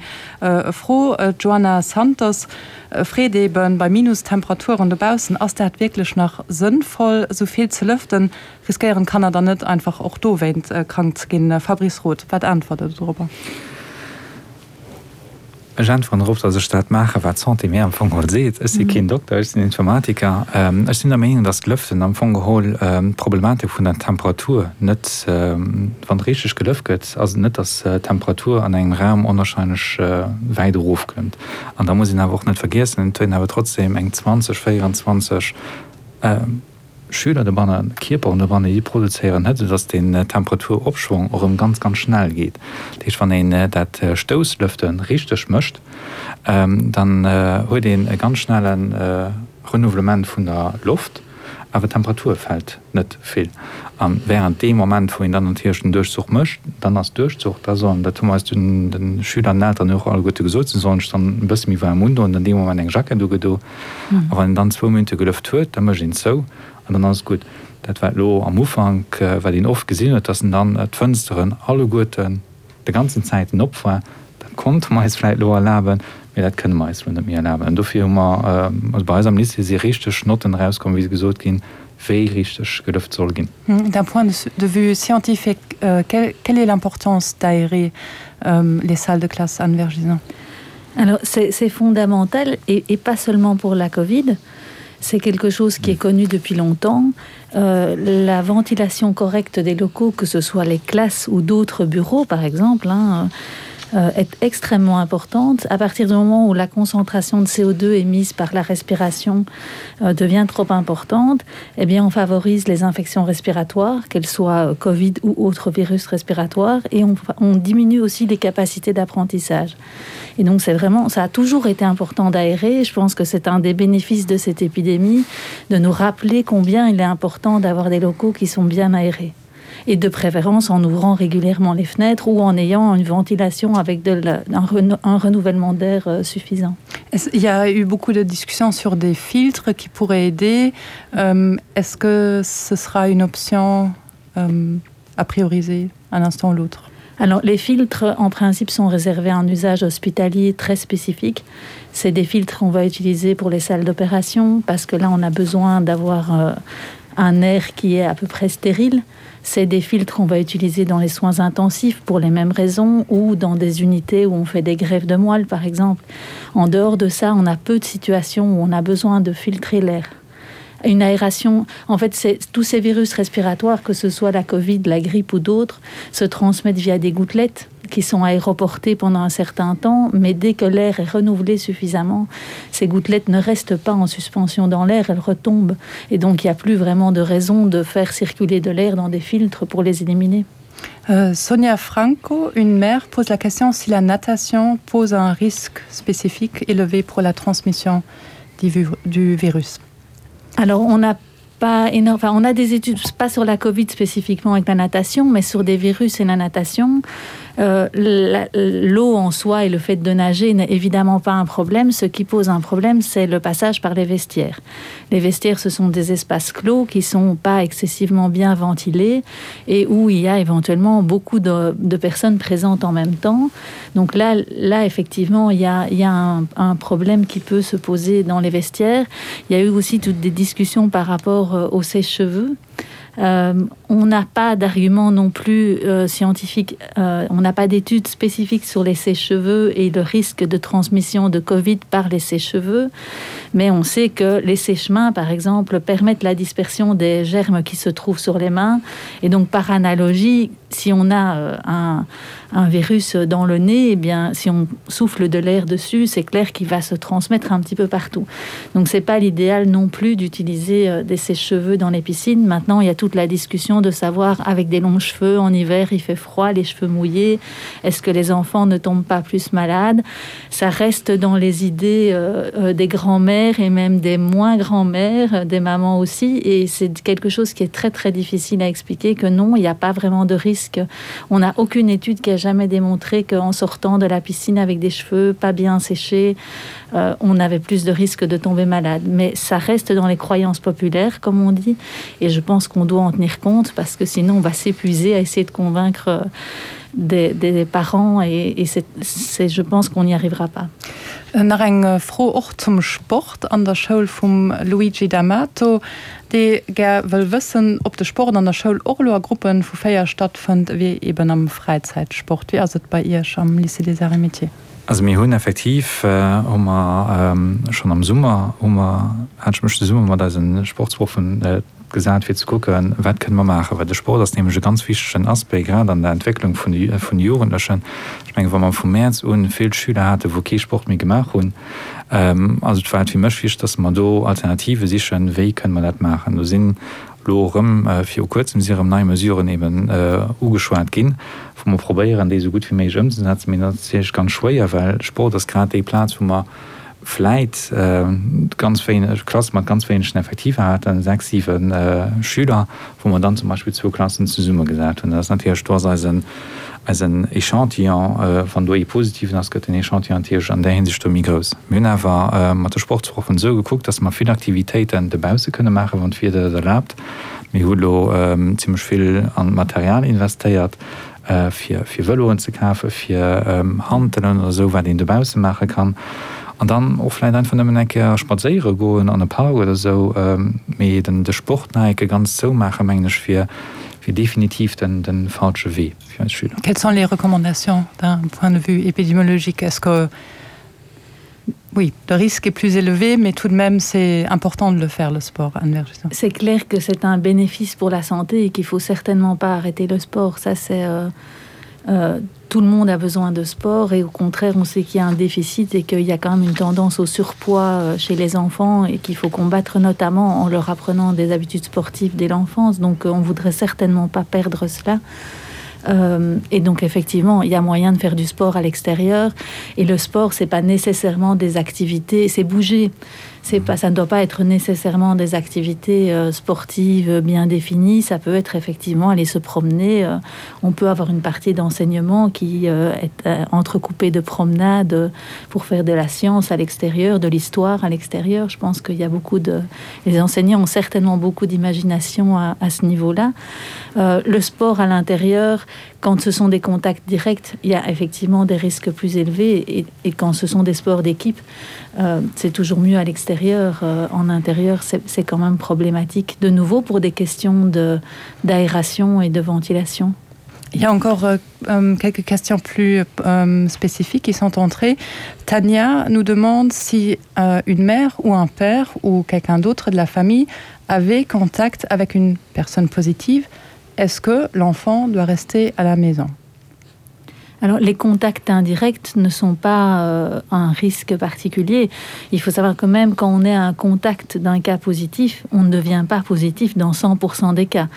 Fro, d'Joana Santos freet eeben, bei Minustemperaturen dobaussen, ass dat wierklech nach sënnvoll, esou vill ze lëften? Riskéieren d'Kanner dann net einfach och dowéint krank ze ginn? Fabrice Roth, wat äntwert Der dorobber? Ech äntweren drop, datt ech dat maachen, wat d'Santé mir am Fong geholl seet. Ech si keen Dokter, ech sinn Informatiker. Ech sinn der Meenung, datt d'Lëften am Fong geholl d'Problematik vun der Temperatur net, wann richteg gelëft gëtt, ass et net, datt d'Temperatur an engem Raum onwahrscheinlech wäit erofkëmmt. An da muss een awer och net vergiessen, et huet een awer trotzdem eng 20, 24, Schüler dobanne, Kierperen dobanne, déi produzéieren Hëtzt, esou dass den Temperaturopschwong och erëm ganz, ganz schnell geet. Dat heescht, wann een dat Stousslëfte richteg mécht, dann huet een e ganz schnelle Renouvellement vun der Loft, awer d'Temperatur fält net vill. A während deem Moment, wou een dann natierlech den Duerchzuch mécht, dann ass Duerchzuch, da sollen, dat hu mer eis de Schüler an den Elteren och alleguerte gesot, se sollen sech dann e bësse méi waarm undoen, dann dee Moment eng Jackett ugedo. A wann een dann zwou Minutte gelëft huet, da mécht een zou. An dann ass et gutt. Dat wat elo am Ufank, wat een oft gesinn huet, dass en dann d'Fënsteren alleguerten de ganzen Zäiten op war, dat konnte mer eis vläicht elo erlaben, mee dat kënne mer eis elo net méi erlaben. An dofir hu mer, also bei eis am Lycée si richteg Notten erauskomm, wéi se gesot ginn, wéi richteg gelëft soll ginn. D'un point de vue scientifique, quelle est l'importance d'aérer les salles de classe, Anne Vergison? Alors c'est fondamental et, et pas seulement pour la Covid. C'est quelque chose qui est connu depuis longtemps. Euh, la ventilation correcte des locaux, que ce soit les classes ou d'autres bureaux par exemple, hein, euh, est extrêmement importante. À partir du moment où la concentration de CO2 émise par la respiration euh, devient trop importante, eh bien on favorise les infections respiratoires, qu'elles soient euh, COVID ou autres virus respiratoires et on, on diminue aussi les capacités d'apprentissage. Et donc c'est vraiment ça a toujours été important d'aérer. Je pense que c'est un des bénéfices de cette épidémie de nous rappeler combien il est important d'avoir des locaux qui sont bien aérés et de préférence en ouvrant régulièrement les fenêtres ou en ayant une ventilation avec de la, un, reno, un renouvellement d'air euh, suffisant. Il y a eu beaucoup de discussions sur des filtres qui pourraient aider. Euh, Est-ce que ce sera une option euh, à prioriser un instant ou l'autre? Alors les filtres en principe sont réservés à un usage hospitalier très spécifique. C'est des filtres qu'on va utiliser pour les salles d'opération parce que là on a besoin d'avoir euh, un air qui est à peu près stérile. C'est des filtres qu'on va utiliser dans les soins intensifs pour les mêmes raisons ou dans des unités où on fait des greffes de moelle par exemple. En dehors de ça, on a peu de situations où on a besoin de filtrer l'air. Une aération, en fait, c'est tous ces virus respiratoires, que ce soit la Covid, la grippe ou d'autres, se transmettent via des gouttelettes qui sont aéroportées pendant un certain temps, mais dès que l'air est renouvelé suffisamment, ces gouttelettes ne restent pas en suspension dans l'air, elles retombent. Et donc il n'y a plus vraiment de raison de faire circuler de l'air dans des filtres pour les éliminer. Euh, Sonia Franco, une mère, pose la question si la natation pose un risque spécifique élevé pour la transmission du, du virus. Alors on n'a pas énorme enfin, on a des études pas sur la Covid spécifiquement avec la natation, mais sur des virus et la natation. Euh, l'eau en soi et le fait de nager n'est évidemment pas un problème. Ce qui pose un problème, c'est le passage par les vestiaires. Les vestiaires, ce sont des espaces clos qui sont pas excessivement bien ventilés et où il y a éventuellement beaucoup de, de personnes présentes en même temps. Donc là, là effectivement, il y a, il y a un, un problème qui peut se poser dans les vestiaires. Il y a eu aussi toutes des discussions par rapport euh, aux sèche-cheveux. Euh, on n'a pas d'argument non plus euh, scientifique, euh, on n'a pas d'études spécifiques sur les sèche-cheveux et le risque de transmission de Covid par les sèche-cheveux, mais on sait que les sèche-mains, par exemple, permettent la dispersion des germes qui se trouvent sur les mains. Et donc par analogie, si on a euh, un, un virus dans le nez, eh bien si on souffle de l'air dessus, c'est clair qu'il va se transmettre un petit peu partout. Donc c'est pas l'idéal non plus d'utiliser euh, des sèche-cheveux dans les piscines. Maintenant, il y a toute la discussion de savoir avec des longs cheveux en hiver, il fait froid, les cheveux mouillés, est-ce que les enfants ne tombent pas plus malades? Ça reste dans les idées euh, euh, des grands-mères et même des moins grands-mères, des mamans aussi et c'est quelque chose qui est très très difficile à expliquer que non, il n'y a pas vraiment de risque. On n'a aucune étude qui a jamais démontré qu'en sortant de la piscine avec des cheveux pas bien séchés, euh, on avait plus de risques de tomber malade. Mais ça reste dans les croyances populaires, comme on dit, et je pense qu'on doit en tenir compte parce que sinon on va s'épuiser à essayer de convaincre euh, des, des parents et, et c'est je pense qu'on n'y arrivera pas. Euh, nach eng Fro och zum Sport an der Schoul vum Luigi D'Amato, dee gär wëll wëssen, ob de Sport an der Schoul och elo a Gruppe vu 4 stattfënnt, ewéi eben am Fräizäitsport. Wéi ass et bei Iech am Lycée des Arts et Métiers? Also mir hunn effektiv, hu mer schonn am Summer, hu mer, hat ech mech zesumme mat eise Sportsproffen gesat fir ze kucken, wat kënne mer maachen. Well de Sport ass nämlech e ganz wichtegen Aspect, grad an der Entwécklung vun de vun de Jugendlechen. Ech mengen, wa mer vum Mäerz un vill Schüler haten, wou kee Sport méi gemaach hunn, also et war et fir mech wichteg, datt mer do Alternative sichen, wéi kënne mer dat maachen. Do sinn elo erëm viru kuerzem si erëm nei Mesuren eben ugeschwat ginn, wou mer probéieren, déi esou gutt wéi méiglech ëmzesetzen. Mee dat ass natierlech ganz schwéier, well Sport ass grad déi Plaz, wou mer. vläit ganz wéineg Klasse mat ganz wéinegen Effektiver haten, 6, 7 Schüler, wou mer dann zum Beispill zwou Klassen zesummegesat hunn. Dat ass natierlech, do ass eisen, eisen Echantillon, wann do ee positiven ass, gëtt den Echantillon natierlech an där Hinsicht do méi grouss. Mir hunn awer mat de Sportsproffen esou gekuckt, dass mer vill Aktivitéiten dobausse kënne maachen, wann d'Wieder dat erlaabt. Mir hu lo zimmlech vill an d'Material investéiert. fir fir Vëloen ze kafen, fir Hantelen oder esou, wat een dobausse maache kann. An dann och vläicht einfach nëmmen eng Kéier spadséiere goen an e Park oder esou. Mee den de Sport nach eng Kéier ganz zoumaachen, mengen ech, wier wier definitiv den de falsche Wee fir eis Schüler. Quelles sont les recommandations d'un point de vue épidémiologique? Est-ce que Oui, le risque est plus élevé, mais tout de même c'est important de le faire le sport C'est clair que c'est un bénéfice pour la santé et qu'il faut certainement pas arrêter le sport. Ça c'est euh, euh, tout le monde a besoin de sport et au contraire on sait qu'il y a un déficit et qu'il y a quand même une tendance au surpoids euh, chez les enfants et qu'il faut combattre notamment en leur apprenant des habitudes sportives dès l'enfance. Donc euh, on voudrait certainement pas perdre cela. Euh, et donc effectivement il y a moyen de faire du sport à l'extérieur et le sport c'est pas nécessairement des activités c'est bouger c'est pas ça ne doit pas être nécessairement des activités euh, sportives bien définies ça peut être effectivement aller se promener euh, on peut avoir une partie d'enseignement qui euh, est euh, entrecoupée de promenades pour faire de la science à l'extérieur de l'histoire à l'extérieur je pense qu'il y a beaucoup de les enseignants ont certainement beaucoup d'imagination à, à ce niveau là euh, le sport à l'intérieur quand ce sont des contacts directs il y a effectivement des risques plus élevés et, et quand ce sont des sports d'équipe euh, c'est toujours mieux à l'extérieur euh, en intérieur c'est quand même problématique de nouveau pour des questions de d'aération et de ventilation Il y a encore euh, euh, quelques questions plus euh, spécifiques qui sont entrées. Tania nous demande si euh, une mère ou un père ou quelqu'un d'autre de la famille avait contact avec une personne positive. Est-ce que l'enfant doit rester à la maison? Alors les contacts indirects ne sont pas euh, un risque particulier. Il faut savoir que même quand on est à un contact d'un cas positif, on ne devient pas positif dans 100% des cas.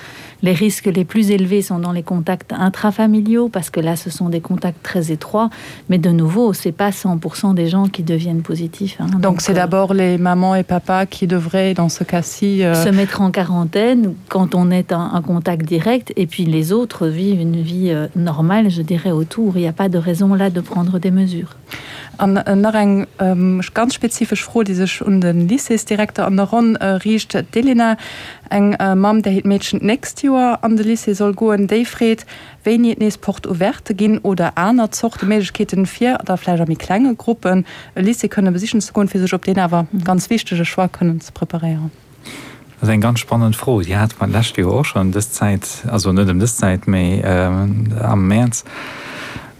Les risques les plus élevés sont dans les contacts intrafamiliaux parce que là ce sont des contacts très étroits, mais de nouveau c'est pas 100% des gens qui deviennent positifs. Hein. Donc, Donc c'est euh, d'abord les mamans et papas qui devraient dans ce cas-ci euh... se mettre en quarantaine quand on est un, un contact direct et puis les autres vivent une vie euh, normale, je dirais autour il n'y a pas de raison là de prendre des mesures. An nach eng ganz spezifesch Fro, déi sech un de Lycéesdirekter an der Ronn riicht. D'Elena, eng Mamm, där hiert Meedchen d'nächst Joer an de Lycée soll goen, déi freet, wéini et nees Porte ouverte ginn oder aner Zorte Méiglechkeeten, fir da vläicht a méi klenge Gruppen e Lycée kënne besichen ze goen, fir sech op deen awer ganz wichtege Choix kënnen ze preparéieren. Dat ass eng ganz spannend Fro. Déi hate mer d'lescht Joer och schonn ëm dës Zäit, also net ëm dës Zäit, mee am Mäerz.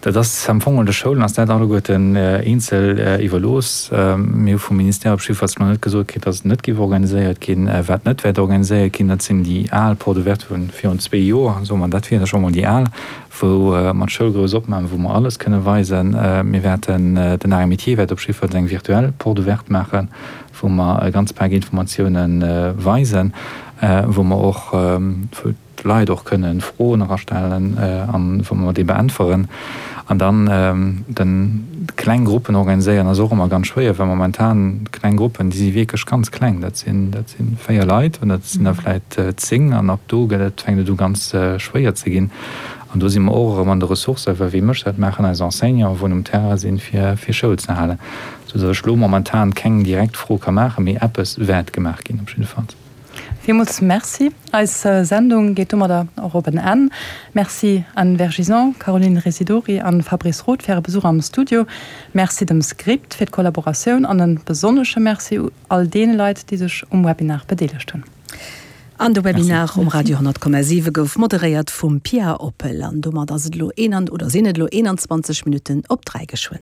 Dat ass am Fong de Schoulen ass dat alleguerten eenzel iwwerlooss. Mir hu vum Ministère op jiddefalls nach net gesot kritt, datt et net géif organiséiert ginn. Wat net wäert organiséiert ginn, dat sinn déi al Porte ouverte vu virun zwee Joer, soe mer, dat wier da scho mol déi al, wou mer d'Schoul grouss opmaachen, wou mer alles kënne weisen. Mir wäerten, den Arts et Métiers wäert op jiddefalls eng virtuell Porte ouverte maachen, wou mer e ganz Pak Informatioune weisen, wou mer och, wou d'Leit och kënne Froen erastellen an wou mer déi beäntweren. An dann den kleng Gruppen organiséieren ass och ëmmer ganz schwéier, well momentan kleng Gruppen, déi si wierklech ganz kleng, dat sinn, dat si 4 Leit oder dat sinn der vläit 10 an ab do gëtt et, fänkt et u ganz schwéier ze ginn. An do si mer och erëm an de Ressourcen, well wie mécht dat? Maachen eis Enseignanten, wou um Terrain sinn, fir Schoul ze halen. Sou datt ech elo momentan keng direkt Fro ka maachen, mee eppes wäert gemaach ginn op jiddefalls. Villmools Merci. Eis Sendung geet domadder och op en Enn. Merci Anne Vergison, Caroline Residori an Fabrice Roth fir äre Besuch am Studio. Merci dem Script fir d'Kollaboratioun an en besonnesche Merci u all deene Leit, déi sech um Webinar bedeelegt hunn. An de Webinar um Radio 10,7 gouf moderéiert vum Pia Oppel. An domat ass et elo oder sinn et elo 21 Minutten op 3 geschwënn.